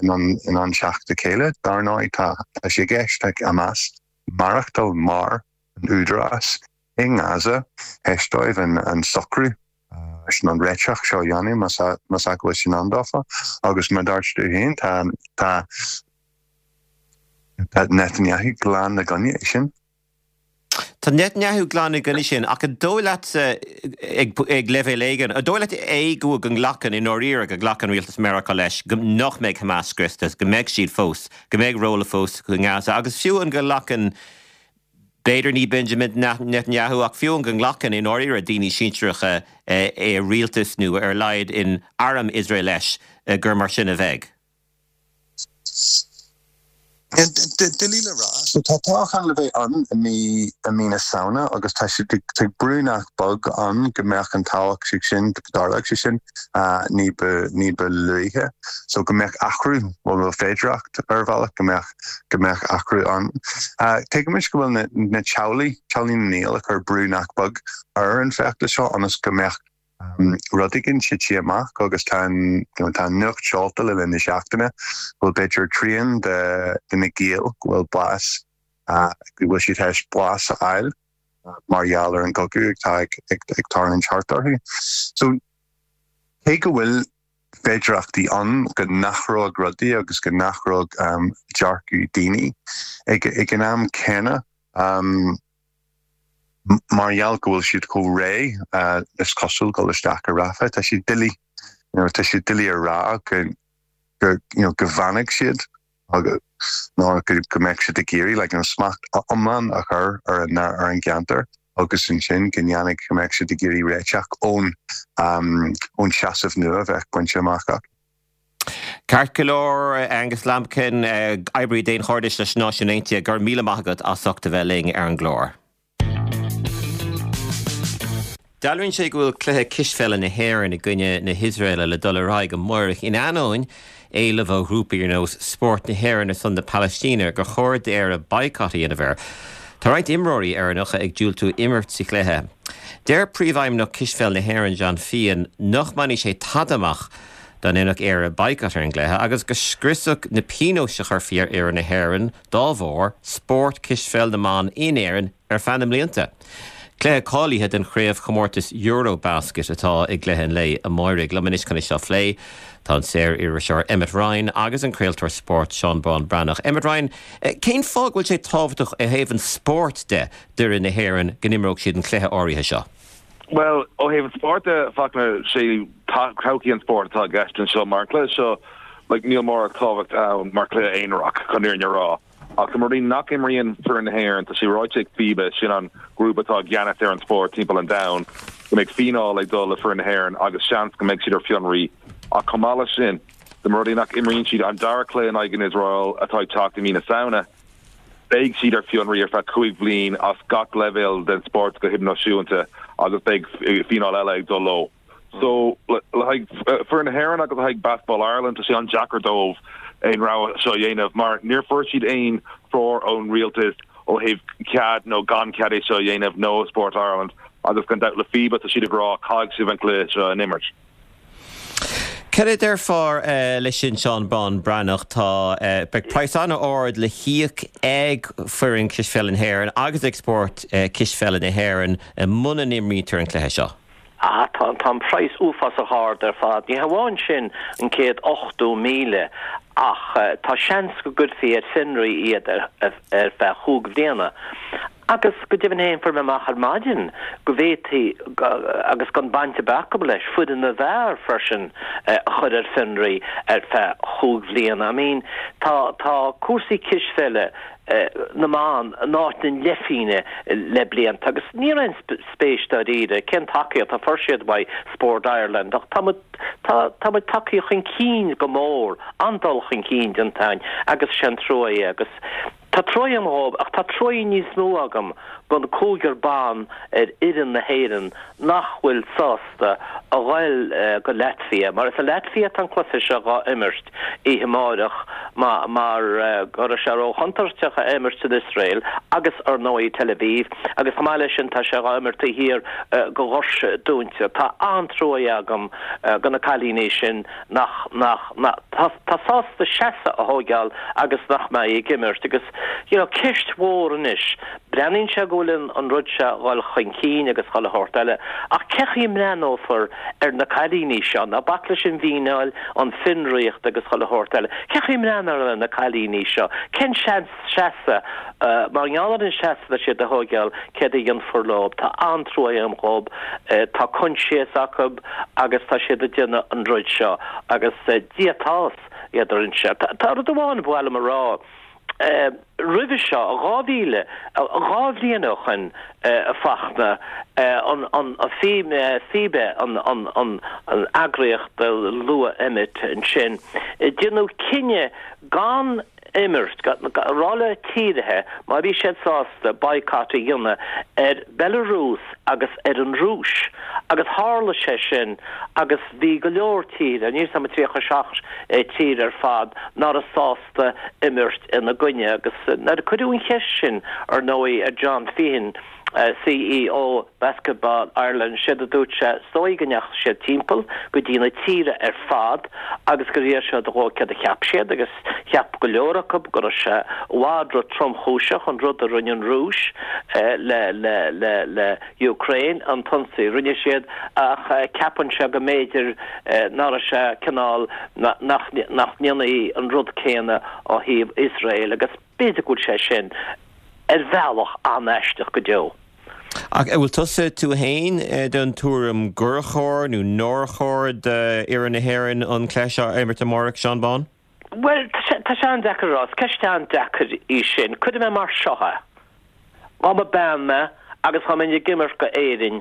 in ann teacht le chéile. Dar ndóigh, tá sé i gceist ag Hamas maireachtáil mar an údarás i nGaza théis dóibh an socrú sin, an réiteach seo a dhéanamh, más ea go bhfuil sé i ndán dófa. Agus mar a dúirt tú féin, tá Netanyahu glan i gcoinne é sin. Tá Netanyahu glan i gcoinne sin, ach an dóigh leatsa, ag leibhéal éigin, an dóigh leat é go go nglacann, i ndáiríre, go nglacann rialtas Meiriceá leis go nach mbeidh Hamas scriosta, go mbeidh siad fós, go mbeidh ról fós acu i nGaza, agus fiú an go nglacann, b'fhéidir ní Benjamin Netanyahu, ach fiú an go nglacann, i ndáiríre, daoine sinsearacha i rialtas nó ar a laghad in arm Iosrael leis gur mar sin a bheidh? Doiligh le rá. So tá toghchán le bheith ann i mí i mí na Samhna agus tá sé tá brú nach beag ann go mbeadh an toghchán sin, go dtarlódh sé sin ní ba ní ba luaithe. So go mbeadh athrú, bhuel féidearthacht ar bhealach go mbeadh go mbeadh athrú ann. Tuigimid go bhfuil na na teaghlaigh, teaghlaigh na ngiall ag cur brú nach beag ar an bhfeachtas seo ionas go mbeadh rud éigin tite amach agus tá an tá an nuacht seolta le linn na seachtaine go bhfuil b'fhéidir trian de de na giall go bhfuil bás go bhfuil siad théis bás a fháil mar gheall ar an gcogadh atá ag ag ag tarlúint thart orthu. So cé go bhfuil féidearthachtaí ann go n-athródh rudaí agus go n-athródh dearcadh daoine ag ag an am céanna Mar gheall go bhfuil siad chomh réidh is cosúil dul isteach i Rafah, tá sé doiligh, you know, tá sé doiligh a rá go, go, you know, go bhfanfaidh siad agus nó go, go mbeadh siad ag iarraidh like, you know, smacht iomlán a chur ar an, ar an gceantar agus ansin go ndéanfaidh, go mbeadh siad ag iarraidh réiteach ón, ón seasamh nua a bheadh bainte amach acu. Ceart go leor, Angus Lambkin, oibrí daonchairdis leis na Náisiúin Aontaithe, go raibh míle maith agat as ucht a bheith linn ar an gclár. Dealraíonn sé go bhfuil cluiche cispheile na hÉireann i gcoinne na hIosraeile le dul ar aghaidh amáireach in ainneoin éileamh ó ghrúpaí ar nós Spórt na hÉireann ar son na Palaistíne gur chóir d'Éire baghcat a dhéanamh air. Tá roinnt imreoirí Éireannacha ag diúltú imirt sa chluiche. Deir Príomhfheidhmeannach Cispheil na hÉireann John Feehan nach mbainfidh sé tada amach dá ndéanfadh Éire baghcat ar an gcluiche agus go scriosfadh na pionóis a chuirfí ar fhoireann na hÉireann dá bharr spórt cispheil na mban in Éirinn ar feadh na mblianta. Cluiche cáilithe don chraobhchomórtas EuroBasket atá i gcluiche an lae amáirigh. Liom anois chun é seo a phlé tá an saor-iriseoir Emmet Ryan agus an craoltóir spóirt Seán Bán Breathnach. Emmet Ryan, cén fáth go bhfuil sé tábhachtach ó thaobh an spóirt de d'fhoireann na hÉireann go n-imreodh siad an cluiche áirithe seo? Bhuel, ó thaobh an spóirt de, Fachtna, sé. Todhchaí an spóirt atá i gceist anseo mar an cluiche seo like níl mórán tábhacht ann mar chluiche aonarach chun an fhírinne a rá. Ach dá mba rud é nach imríonn foireann na hÉireann, tá sé ráite ag FIBA, sin an grúpa atá i gceannas ar an spórt timpeall an domhain, go mbeidh fíneáil ag dul le foireann na hÉireann agus seans go mbeidh siad ar fionraí. Ach chomh maith leis sin, dá mba rud é nach imríonn siad an dara cluiche in aghaidh an Iosrael atá ag teacht i mí na Samhna, beidh siad ar fionraí ar feadh 5 bhliain as gach leibhéal den spórt go hidirnáisiúnta agus beidh fíneáil eile ag dul leo. So, le haghaidh foireann na hÉireann agus le haghaidh Basketball Ireland, tá sé an-deacair dóibh aon rogha seo a dhéanamh mar níor fuair siad aon treoir ón rialtas ó thaobh cead nó gan cead é seo a dhéanamh nó ó Sport Ireland agus gan dabht le FIBA tá siad ag rá caithfidh sibh an cluiche seo a imirt. Cad a déarfá leis sin Seán Bán Breathnach? Tá, beidh praghas an-ard le híoc ag foireann cispheile na hÉireann agus ag spórt cispheile na hÉireann muna n-imrítear an cluiche seo. Ah, tá, tá an praghas uafásach ard ar fad. Ní hamháin sin, an 180,000, ach tá seans go gcuirfí ar fionraí iad ar feadh chúig bhliana. Agus go deimhin féin, fuair mé amach ar maidin go bhféadfaí, agus gan baint ar bith acu leis, foireann na bhfear freisin a chur ar fionraí ar feadh chúig bhliana. I mean, tá, tá cúrsaí cispheile na mban in áit na leithphingne le blianta agus ní raibh aon spéis dáiríre cén tacaíocht a fuair siad uaidh Sport Ireland ach tá muid tá tá muid tagtha chun cinn go mór, an-dul chun cinn déanta againn agus is é an trua é agus tá trua agam dhóibh ach tá trua níos mó agam don cúigear ban ar fhoireann na hÉireann nach bhfuil sásta a ghoil go Latvia, mar is i Latvia atá an cluiche seo dhá imirt oíche amáireach, mar go raibh sé ró-chontúirteach a imirt san Iosrael agus, ar ndóigh, Tel Aviv, agus chomh maith leis sin tá sé dhá imirt taobh thiar go dhoirse dúinte. Tá an-trua agam go na cailíní sin nach, nach, nach, tá sásta seasamh a thóigeáil agus nach mbeidh ag imirt agus, you know, ceist mhór anois Breathnaíonn sé go bhfuil an rud seo a dhul chun cinn agus chuile shórt eile, ach cé chaoi a mbreathnófar ar na cailíní seo? Ná bac leis an bhfíneáil, an fionraíocht agus chuile shórt eile. Cé chaoi a mbreathnófar ar na cailíní seo? Cén seans seasamh, mar gheall ar an seasamh atá siad a thóigeáil, céard a dhéanfar leo? Tá an-trua agam dhób. Tá coinsias acu agus tá siad ag déanamh an rud seo agus díotás iad ar an seo. Tá rud amháin ba mhaith liom a rá. Roimhe seo, 2000, 2 bhliain ó shoin, a Fachtna, an FIBA, an eagraíocht a luaigh Emmet ansin, déanadh cinneadh gan imirt, a rá le tíortha má bhí siad sásta boycott a dhéanamh ar Belarus agus ar an Rúis agus tharla sé sin agus bhí go leor tíortha, níl 'fhios a'm 37 tír ar fad, ná raibh sásta. imirt ina gcoinne agus nuair a cuireadh an cheist sin ar ndóigh ar John Feehan, CEO Basketball Ireland, séard a dúirt sé, is dóigh go ndeachaigh siad timpeall go dtí na tíortha ar fad agus gur iarr siad dhóibh céard a cheap siad agus cheap go leor acu go raibh sé i bhfad ro-tromchúiseach an rud a rinne an Rúis le le le le Ukraine, an t-ionsaí a rinne siad, ach ceapann sé go mb'fhéidir ná raibh sé cineál, nach ndéanfaí an rud céanna ó thaobh Iosrael agus b'fhéidir go bhfuil sé sin ar bhealach an-aisteach go deo. Ach an bhfuil tusa, tú fhéin, den tuairim gur chóir nó nár chóir d'fhoireann na hÉireann an cluiche seo a imirt amárach, Seán Bán? Bhuel, tá sé an-deacair a rá. Is ceist an-deacair í sin. Cuirfidh mé mar seo é. Dá mba bean mé agus dá mbeinn ag imirt go Éirinn,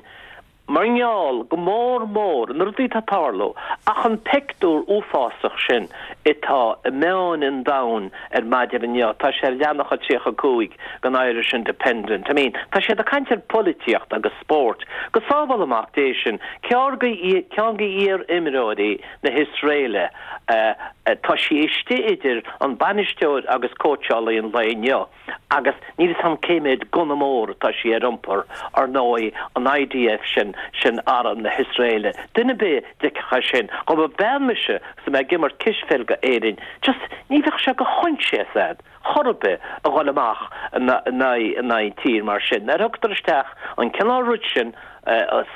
mar gheall, go mór mór, na rudaí atá ag tarlú, ach an pictiúr uafásach sin atá i meáin an domhain ar maidin inniu, tá sé ar leathanach a 35 den Irish Independent. I mean, tá siad ag caint ar pholaitíocht agus spórt. Go sábhála Mac Dé sinn, ceann de iar-imreoirí na hIosraeile, tá sí istigh idir an bainisteoir agus cóitseálaí an lae inniu agus níl 'fhios a'm cé mhéad gunna mór atá sí ar iompar, ar ndóigh, an IDF sin, sin arm na hIosraeile. Duine ar bith a d'fheicfeadh é sin, dá mba bean mise agus mé ag imirt cispheil go Éirinn, just ní bheadh sé de choinsias a'd. chor ar bith a dhul amach in aghaidh tír mar sin. Nuair a thugtar isteach an cineál rud sin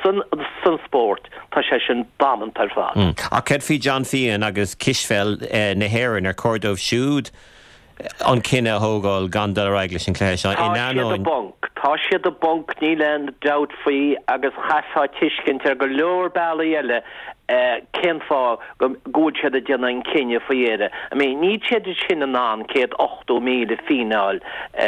san spórt, tá sé sin damanta ar fad. Ach céard faoi John Feehan agus cispheil na hÉireann? Ar chóir dóibh siúd an cinneadh a thógáil gan dul ar aghaidh leis an chluiche seo in Tá siad i ainneoin. bponc. Tá siad i bponc, níl aon dabht faoi agus chaithfeá tuiscint ar go leor bealaí eile cén fáth go bhfuil siad ag déanamh an cinneadh faoi dheireadh. I mean, níl siad sin in ann 180,000 fíneáil a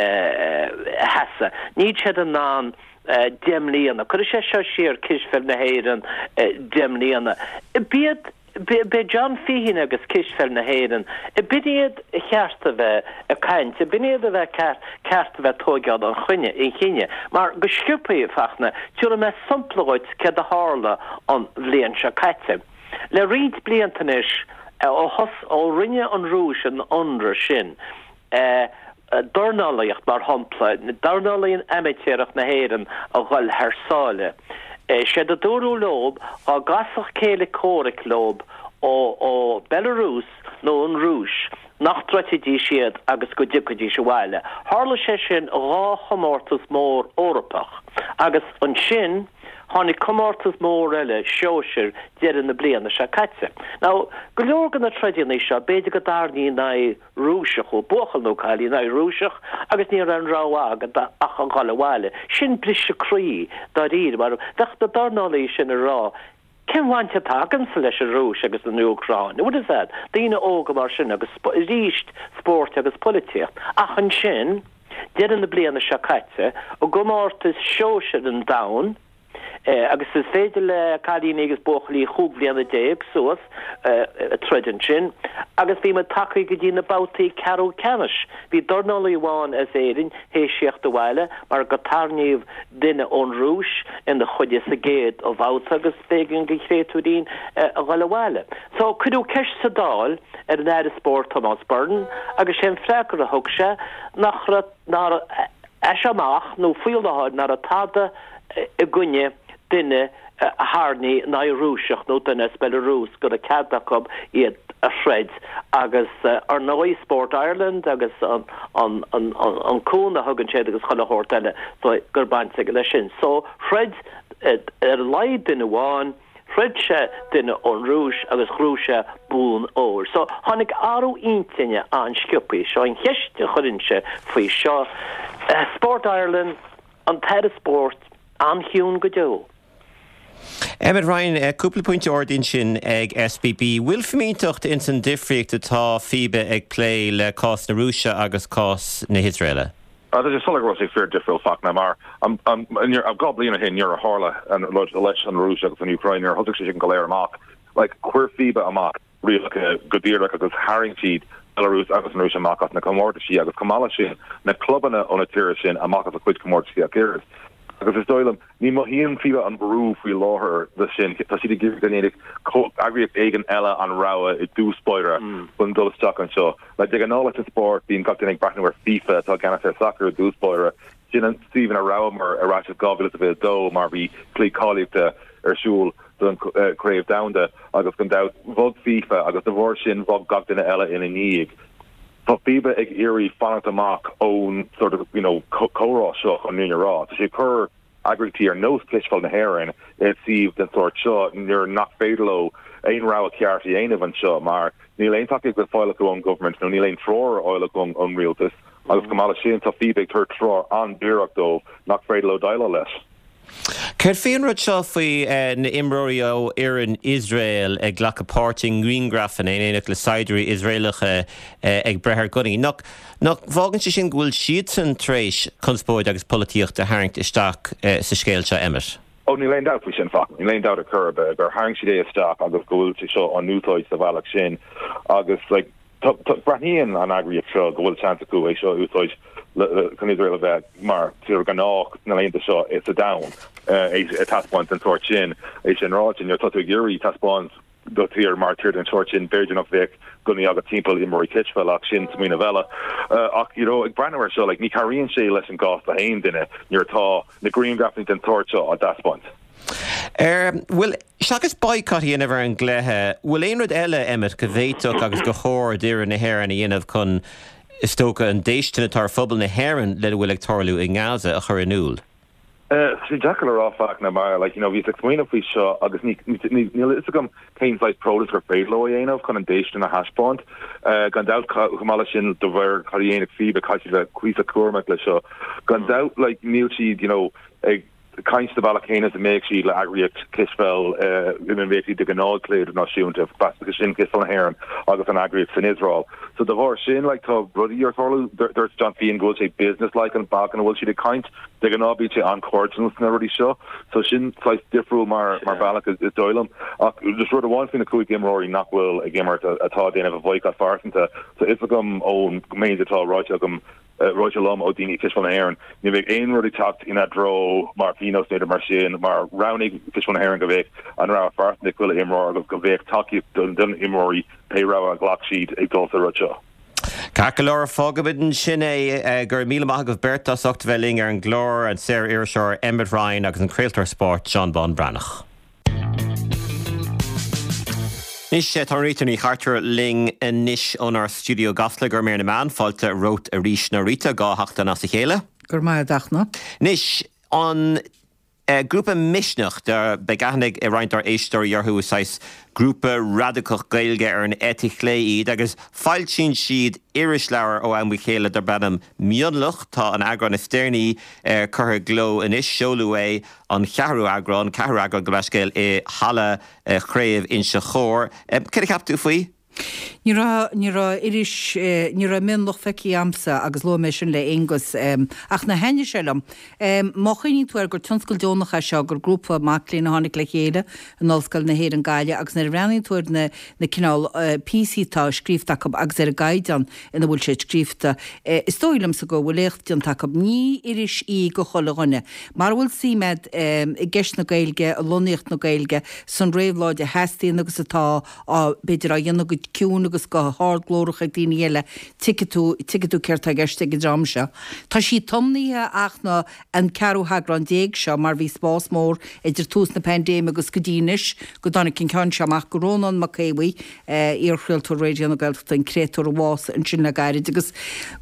sheasamh. Níl siad in ann 10 mbliana. Cuirfidh sé seo siar cispheil na hÉireann 10 mbliana. B'iad B'é John Feehan agus Cispheil na hÉireann, b'in iad a cheart a bheith ag caint, b'in iad a bheith ceart a bheith ag tóigeáil an chinnidh, mar go sciobthaí, Fachtna, tabharfaidh mé sampla dhuit céard a tharla an bhliain seo caite. Le roinnt blianta anois, ó thos, ó rinne an Rúis an ionradh sin, dornálaíocht, mar shampla, dornálaíocht amaitéarach na hÉireann a dhul thar sáile. Séard a dúradh leob, dhá gcasfadh céile comhraic leob ó Belarus nó an Rúis, nach dtroidfidís iad agus go dtiocfaidís abhaile. Tharla sé sin dhá chomórtas mór Eorpach agus ansin tháinig comórtas mór eile sóisir deireadh na bliana seo caite. Now, go leor de na troideanna seo, b'fhéidir go dtarraingí in aghaidh Rúiseach, ó buachaill nó cailín in aghaidh Rúiseach agus ní raibh aon rogha agat ach a dhul abhaile. Sin briseadh croí dáiríre mar bheadh na dornálaí sin ag rá cén bhaint atá agamsa leis an Rúis agus an Úcráin? What is that? Daoine óga mar sin agus arís spórt agus polaitíocht. Ach ansin, deireadh na bliana seo caite, i gcomórtas sóisir an domhain, Agus is féidir le cailíní agus buachaillí chúig bhliana déag suas troid ansin. Agus bhí muid tagtha go dtí na babhtaí ceathrú ceannais. Bhí dornálaí amháin as Éirinn théis theacht abhaile mar go tarraingíodh duine ón Rúis ina choinne sa gcéad bhabhta agus b'éigean don chréatúirín a dhul abhaile. So cuireadh ceist sa Dáil ar an Aire Spóirt Tomás Byrne agus sé an freagra a thug sé nach raibh nár as seo amach nó faoi láthair ná raibh tada i gcoinne duine a tharraingí in aghaidh Rúiseach nó duine as Belarus go raibh cead acu iad a throid agus ar ndóigh Sport Ireland agus an cúnamh a thugann siad agus chuile shórt eile so go raibh baint aige leis sin. So throid ar a laghad duine amháin Throid sé duine ón Rúis agus ghnóthaigh sé bonn óir. So, tháinig athrú intinne an-sciobthaí. Seo an cheist a chuirinnse faoi seo. Sport Ireland, an tAire Spóirt, an-chiúin go deo. Emmet Ryan, cúpla pointe ardaithe ansin ag SBB. Bhfuil fimínteacht ins an difríocht atá FIBA ag plé le cás na Rúise agus cás na hIosraeile? Tá sé soiléir go raibh sé fíor difriúil Fachtna mar 2 bliain ó shin nuair a tharla an rud leis an Rúis agus an Úcráin nuair a thosaigh sé sin go léir amach like chuir FIBA amach rialacha go díreach agus tharraing siad Belarus agus an Rúis amach as na comórtaisí agus chomh maith leis sin na clubanna ó na tíortha sin amach as a cuid comórtaisí ach oiread agus is dóigh liom ní mothaíonn FIBA an brú faoi láthair de sin tá siad ag iarraidh go ndéanfadh eagraíocht éigin eile an rogha i dtús báire chun dul isteach anseo. Like de ghnáth leis an spórt, bíonn gach duine ag breathnú ar FIFA atá i gceannas ar sacar i dtús báire. Sin an suíomh ina rabhamar ar ais i 2022 mar bhí cluichí cáilíochta ar siúl don Chraobh Domhanda agus gan dabht bhog FIFA agus de bharr sin bhog gach duine eile ina ndiaidh. Tá FIBA ag iarraidh fanacht amach ón sort of you know comhrá seo chun an fhírinne a rá. Tá sé ag cur eagraíochtaí ar nós Cispheil na hÉireann i suíomh den sórt seo nuair nach féidir leo aon rogha ceart a dhéanamh anseo mar níl aon tacaíocht le fáil acu ón government nó níl aon treoir ar fháil acu ón rialtas agus chomh maith leis sin tá FIBA ag tabhairt treoir an-díreach dóibh nach féidir leo déileáil leis. Céard faoi an rud seo faoi na imreoirí ó fhoireann Iosrael ag glacadh páirt i ngrianghrafanna in éineacht le saighdiúirí Iosraelacha ag breith ar gunnaí? Nach Nach bhfágann sé sin go bhfuil siadsan tar éis conspóid agus polaitíocht a tharraingt isteach sa scéal seo, Emmet? Ó, níl aon dabht faoi sin, Fachtna. Níl aon dabht ar chor ar bith gur tharraing siad é isteach agus go bhfuil sé seo á n-úsáid sa bhealach sin agus like tá, tá, breathnaíonn an eagraíocht seo go bhfuil seans acu é seo a úsáid le, le, chun Iosrael a bheith mar tír ghnách na laethanta seo sa domhan, é a taispeáint den sórt sin. É sin ráite, nuair atá tú ag iarraidh taispeáint do thír mar tír den sórt sin, b'fhéidir nach bheadh gunnaí agat timpeall imreoirí cispheile ach sin smaoineamh eile. Ach you know ag breathnú air seo like ní chabhraíonn sé leis an gcás do haon duine nuair atá na grianghrafanna den tsórt seo á dtaispeáint. Ar bhfuil, seachas boycott a dhéanamh ar an gcluiche, bhfuil aon rud eile, Emmet, go bhféadfadh agus gur chóir d'fhoireann na hÉireann a dhéanamh chun, is dócha, an déistin atá ar phobal na hÉireann lena bhfuil ag tarlú i nGaza a chur in iúl? Tá sé deacair le rá Fachtna mar like you know bhíos ag smaoineamh faoi seo agus ní níl a fhios agam cén saghas protest gur féidir leo a dhéanamh chun an déistin a thaispeáint. Gan dabht chomh maith leis sin de bharr cad a dhéanfaidh FIBA caithfidh siad bheith cuíosach cúramach leis seo. Gan dabht like níl siad you know ag caint sa bhealach céanna is a mbeadh siad le eagraíocht cispheil ina mbeadh siad de ghnáth ag cluiche idirnáisiúnta, sin Cispheil na hÉireann agus an eagraíocht san Iosrael. So de bharr sin like tá rudaí ar tarlú. Dúirt John Feehan go bhfuil sé business-like an bealach ina bhfuil siad ag caint. De ghnáth bíonn sé an-chairdiúil sna rudaí seo. So sin saghas difriúil mar mar bhealach is dóigh liom. Ach just rud amháin faoi na 5 imreoirí nach bhfuil ag imirt atá ag déanamh a bhoycott phearsanta. So fhios agam ón méid atá ráite agam ráite liom ó daoine i Cispheil na hÉireann, ní bheidh aon rud ag teacht ina dtreo mar phionós nó mar sin, mar roghnaigh Cispheil na hÉireann go mbeadh an rogha phearsanta ag chuile imreoir agus go mbeadh tacaíocht don imreoirí pé rogha a ghlac siad ag dul sa rud seo. Ceart go leor, fágfaimid ansin é. Go raibh míle maith agaibh beirt as ucht a bheith linn ar an gclár, an saor-iriseoir Emmet Ryan agus an craoltóir spóirt Seán Bán Breathnach. Anois, tá Rita Ní Chartúir linn anois ónár stiúideo i gCasla go raibh míle maith, fáilte romhat arís a Rita, 2 sheachtain as a chéile. Go raibh maith agat a Fhachtna. Anois, an grúpa Misneach, beidh aithne ag roinnt dár éisteoirí orthu, is saghas grúpa radacach Gaeilge ar an eite chlé iad agus foilsíonn siad irisleabhar ó am go chéile darb ainm Mionlach. Tá an eagrán is deireanaí curtha i gcló anois, seoladh é an ceathrú eagrán, ceathrú eagrán gabh mo leithscéal, i Halla Chraobh Inse Chór. Céard a cheap tú faoi? Ní raibh, ní raibh iris, ní raibh Mionlach feicthe a'msa agus luaigh mé sin le Aonghus ach ná thaitnigh sé liom. Má chuimhníonn tú air gur tionscal deonach é seo, gur grúpa mac léinn a tháinig le chéile in Ollscoil na hÉireann Gaillimh agus nuair a bhreathnaíonn tú ar na, na cineál píosaí atá scríofa acu agus ar an gcaighdeán ina bhfuil siad scríofa. Is dóigh liomsa go bhfuil éacht déanta acu. Ní iris í go chuile dhuine. Mara bhfuil suim a'd i gceist na Gaeilge, i lonnaíocht na Gaeilge, san réabhlóid a theastaíonn agus atá á, b'fhéidir, á dhéanamh go ciúin agus go hardghlórach ag daoine eile, tuigfidh tú, tuigfidh tú céard tá i gceist ag an dream seo. Tá sí tiomnaithe ach na. an ceathrú heagrán seo mar bhí spás mór idir tús na paindéime agus go dtí anois go dtáinig an ceann seo amach go Rónán Mac Aodha Bhuí, iar-chraoltóir Raidió na Gaeltachta, an créatúr a bhásaigh ansin le gairid agus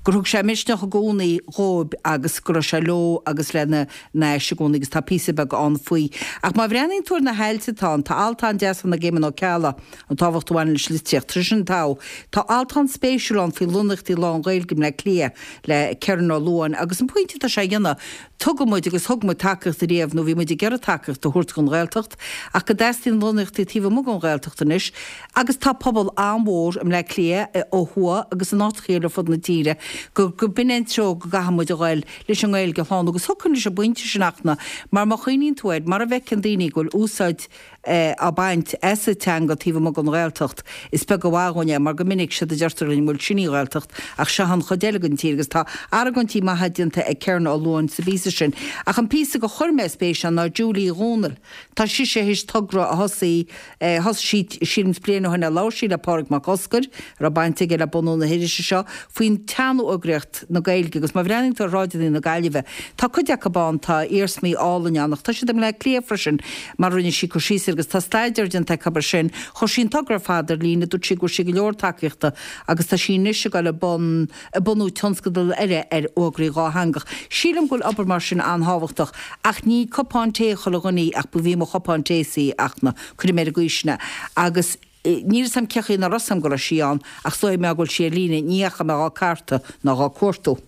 gur thug sé misneach i gcónaí dhóibh agus go raibh sé leo agus lena n-ais i gcónaí agus tá píosa beag ann faoi. Ach má bhreathnaíonn tú ar na hailt atá ann, tá alt an-deas ann ag Éamon Ó Ceallaigh, an tábhacht a bhaineann leis an litríocht. Tá sin togha. Tá alt an-spéisiúil ann faoi lonnaíochtaí lán-Ghaeilge i mBleá Cliath le Kerron Ó Luain agus an pointe atá sé a dhéanamh, tugann muid agus thug muid tacaíocht ariamh nó bhí muid ag iarraidh tacaíocht a thabhairt don Ghaeltacht ach go dteastaíonn lonnaíochtaí taobh amuigh den Ghaeltacht anois agus tá pobal an-mhór i mBleá Cliath ó thuaidh agus in áiteacha eile ar fud na tíre go go b'in é an treo go gcaithfidh muid a ghoil leis an nGaeilge a shlánú agus thiocfainn leis an bpointe sin a Fhachtna mar má chuimhníonn tú air mar a bhfeiceann daoine go bhfuil úsáid á baint as an teanga taobh amuigh den Ghaeltacht, is beag an mhaith dhúinn é mar go minic séard a deirtear linn, bhuel sin í an Ghaeltacht ach seo an chuid eile den tír agus tá argóintí maithe déanta ag Kerron Ó Luain sa bpíosa sin. Ach an píosa gur chuir mé spéis ann ná Julie Uí Dhomhnaill. Tá sise théis togra a thosaigh, thosaigh sí sílim bliain ó shin ar labhair sí le Pádraig Mac Oscair, a raibh baint aige le bunú na hirise seo, faoin tsean-fhoghraíocht na Gaeilge agus má bhreathnaíonn tú ar shráideanna na Gaillimhe, tá cuid acu ann, tá iarsmaí álainn ann ach tá siad i mBleá Cliath freisin mar a rinne sí cur síos air agus tá staidéar déanta acu air sin. Chuir sí an togra ar fad ar líne, dúirt sí go bhfuair sí go leor tacaíochta agus tá sí anois ag dul i bun ag bunú tionscadal eile ar fhógraí dhátheangach. Sílim go bhfuil obair mar sin an-thábhachtach ach ní cupán tae chuile dhuine í ach ba bhí mo chupán tae-sa í a Fhachtna, cuirfidh mé ar an gcaoi sin é. Agus níl 'fhios a'm cé chaoi nach raibh 'fhios a'm go raibh sí ann ach is dóigh mé go bhfuil sí ar líne, ní dheachaigh mé dhá cartadh ná dhá cuartú.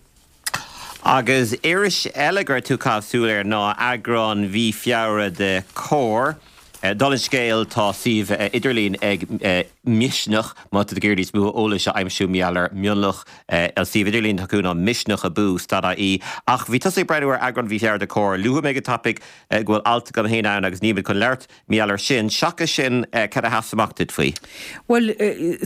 Agus iris eile go raibh tú ag caitheamh súil air ná eagrán mhí Feabhra de Comhar. Dála an scéil tá suíomh idirlín ag Misneach má tá tú ag iarraidh níos mó eolais a aimsiú mar gheall ar Mionlach. An suíomh idirlín atá acu ná misneach abú stad ie. Ach bhí tusa ag breathnú ar eagrán mhí Feabhra de Comhar. Luaigh mé go tapaidh go bhfuil alt agam féin ann agus nílimid chun labhairt Mar gheall air sin. Seachas sin, cad a sheas amach duit faoi? Bhuel,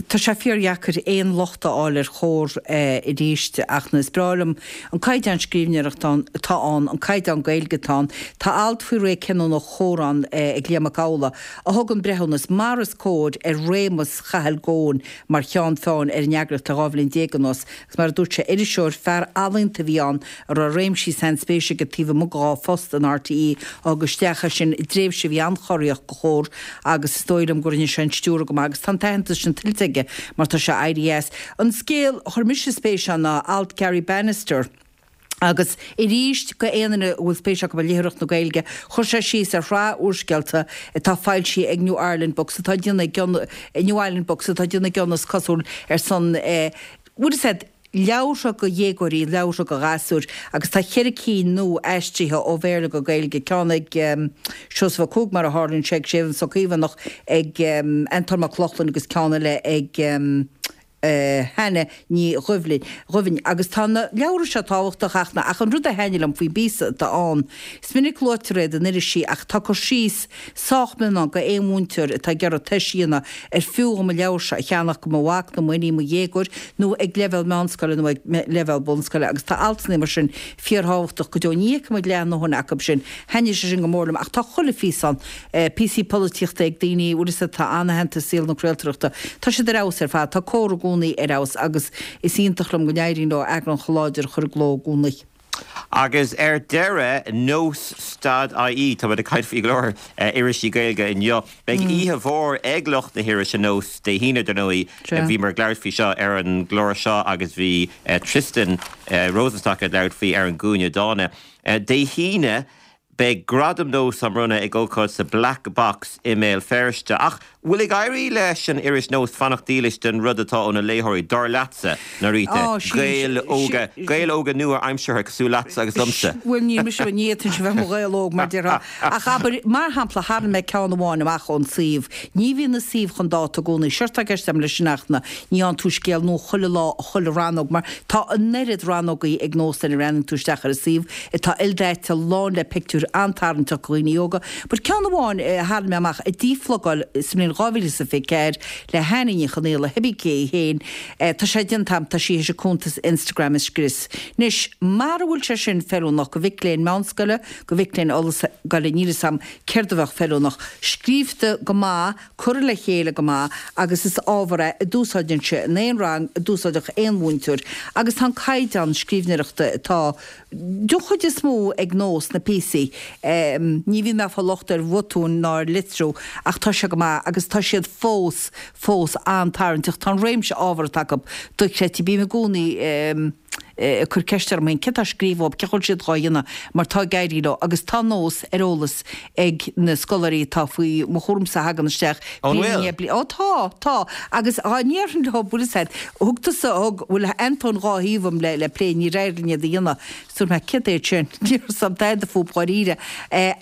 tá sé fíordheacair aon locht a fháil ar Chomhar arís ach is breá liom an caighdeán scríbhneoireachta atá ann, an caighdeán Gaeilge atá ann. Tá alt faoi ré cinniúnach Chomhar ann ag Liam Mac Amhlaigh a thugann breithiúnas, mar is cóir, ar réimeas Chathail Goan mar cheann feadhain ar an eagraíocht le 12 bhliain anuas. Agus mar a dúirt sé, iriseoir, fear ealaíonta a bhí ann a raibh réimsí sainspéise aige taobh amuigh dhá phost in RTÉ a thug isteach é sin i dtréimhse a bhí an-chorraíoch do Chomhar agus is dóigh liom go rinne sé an stiúradh go maith agus tá an t-aitheantas sin tuillte aige mar tá sé éirithe as. An scéal a chuir mise spéis ann ná alt Garry Bannister. Agus arís, go aon duine a bhfuil spéis acu i léitheoireacht na Gaeilge, chuir sé síos ar shraith úrscéalta atá foilsithe ag New Ireland Books atá ag déanamh a gcion, New Island Books atá ag déanamh a gcion is cosúil ar son eh, bhfuil a fhios agat, leabhartha go dhéagóirí, leabhartha go ghasúir agus tá cheithre cinn nua aistrithe ó Bhéarla go Gaeilge, ceann ag Seosamh Ó Cuaig mar a tharlaíonn sé, ag Séamus Ó Caomhánach, ag Antóin Mac Lochlainn agus ceann eile ag. Hannah Ní Dhuibhinn, agus tá na leabhra seo tábhachtach ach na, ach an rud a thaitnigh liom faoin bpíosa atá ann, is minic luaitear iad in irisí ach tá cur síos sách mion ann go aon mhúinteoir atá ag iarraidh tois a dhéanamh ar fiú dhom an leabhar seo a cheannach go mo mhac nó m'iníon, mo dhéagóir nó ag leibhéal meánscoile nó ag leibhéal bunscoile agus tá altanna mar sin fíorthábhachtach go deo. Ní fheicimid leath a ndóthain acu sin. Thaitnigh sé sin go mór liom ach tá chuile phíosa ann. Píosaí polaitíochta ag daoine, bhfuil fhios agat, atá an-aitheanta i saol na craoltóireachta. Tá siad ar fheabhas ar fad. Tá Comhar i gcónaí ar fheabhas agus is iontach liom go n-éiríonn leo eagrán chomh láidir a chur i gcló i gcónaí. Agus ar deireadh, Nós stad IE, tá muid ag caint faoi go leor irisí Gaeilge inniu. Beidh oíche mhór ag lucht na hirise Nós Dé hAoine, dar ndóigh. Bhíomar ag labhairt faoi seo ar an gclár seo agus bhí Tristan Rosenstock ag labhairt faoi ar an gCúinne Dána. Dé hAoine, Beidh Gradaim Nós á mbronnadh ag ócáid sa Black Box i mBéal Feirste. Ach bhfuil ag éirí leis an iris Nós fanacht dílis don rud atá óna léitheoirí, dar leatsa, Norita? Gaeil óga, Gaeil óga nua-aimseartha cosúil leatsa agus liomsa. Bhuel, níl mise, ní fhéadfainnse bheith i mo Ghael óg, mar déarfá. Ach abair, mar shampla, tharraing mé ceann amháin amach ón suíomh. Ní bhíonn an suíomh chun dáta i gcónaí. Séard atá i gceist agam leis sin ach ná ní fhaigheann tú scéal nua chuile lá, chuile rannóg, mar tá an oiread rannógaí ag Nós nuair a bhreathnaíonn tú isteach ar an suíomh. atá ildaite, lán le pictiúir an-tarraingteach do dhaoine óga. But ceann amháin a tharraing mé amach, a díphlugáil sa mbliain 2024 le hAnnie Ní Chonaola, cibé cé í féin, tá sé déanta agam, tá sí théis a cuntas Instagram a scrios. Anois, mara bhfuil sé sin feiliúnach go mhic léinn meánscoile, go mhic léinn ollscoile, níl fhios agam céard a bheadh feiliúnach. Scríobhta go maith, curtha le chéile go maith agus is ábhar é a d'úsáidfinnse in aon rang, a d'úsáidfeadh aon mhúinteoir agus tá an caighdeán scríbhneoireachta atá den chuid is mó ag Nós na píosaí, ní bhíonn mé ag fáil locht ar bhotúin ná ar litriú ach tá sé go maith agus tá siad fós, fós an-tarraingteach. Tá an réimse ábhar atá acu dochreidte. Bím i gcónaí. ag cur ceist orm féin céard atá á scríobh uathu, cén chaoi a bhfuil siad dhá dhéanamh, mar tá ag éirí leo agus tá Nós ar eolas ag na scoláirí atá faoi mo chúramsa a thagann isteach An bliain i bhfuil? ndiaidh bliana. Ó tá, tá. Agus dhá ndéarfainn leo, bhfuil fhios a'd, thug tusa, thug, bhfuil Antóin dhá thaobh agam le, le plé, níor éirigh linn iad a dhéanamh. Is dúirt mé, céard é sin? Ní raibh fhios a'm tada fúb dháiríre.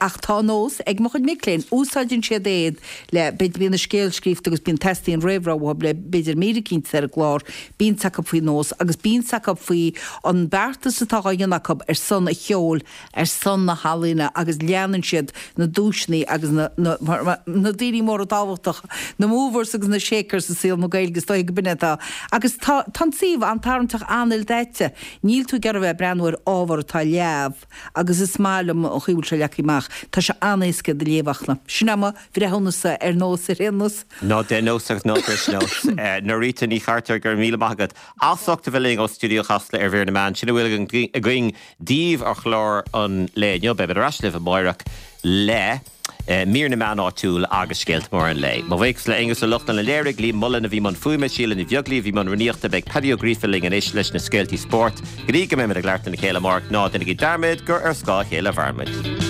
Ach tá Nós ag mo chuid mic léinn, úsáideann siad iad le, b'fhéidir bíonn an scéal scríofa agus bíonn, teastaíonn réamhrá uathu le b'fhéidir mír eicínt ar an gclár, Bíonn 's acu faoi Nós agus bíonn 's acu faoi an beartas atá dhá dhéanamh acu ar son an cheoil, ar son na healaíona agus leanann siad na duaiseanna agus na, na, na daoine móra tábhachtacha, na movers agus na shakers i saol na Gaeilge, is dóigh go b'in é atá. Agus tá, tá an suíomh an-tarraingteach, an-ildaite. Níl tú ag iarraidh a bheith ag breathnú ar ábhar atá leamh agus is maith liom an chaoi a bhfuil sé leagtha amach. Tá sé an-éasca do léamh ach na. Sin é mo bhreithiúnas ar Nós ar aon nós. Ná déan nós agus ná bris nós. Norita Ní Chartúir, go raibh míle maith agat as ucht a bheith linn ó Stiúideo Chasla ar Mhír na Meán. Sin a bhfuil againn daoibh ar chlár an lae inniu. Beimid ar ais libh amáireach le Mír na Meán Áitiúil agus Scéalta Móra an Lae. Mo bhuíochas le Aonghus Ó Lochlainn a léirigh, Liam Mullen a bhí i mbun fuaime, Síle Ní Bheaglaoí a bhí i mbun rúnaíochta. Beidh Paddy Ó Gríofa linn anois leis na scéaltaí spóirt. Go dtí go mbeimid ag labhairt lena chéile amárach, ná déanaigí dearmad gur ar scáth a chéile a mhairimid.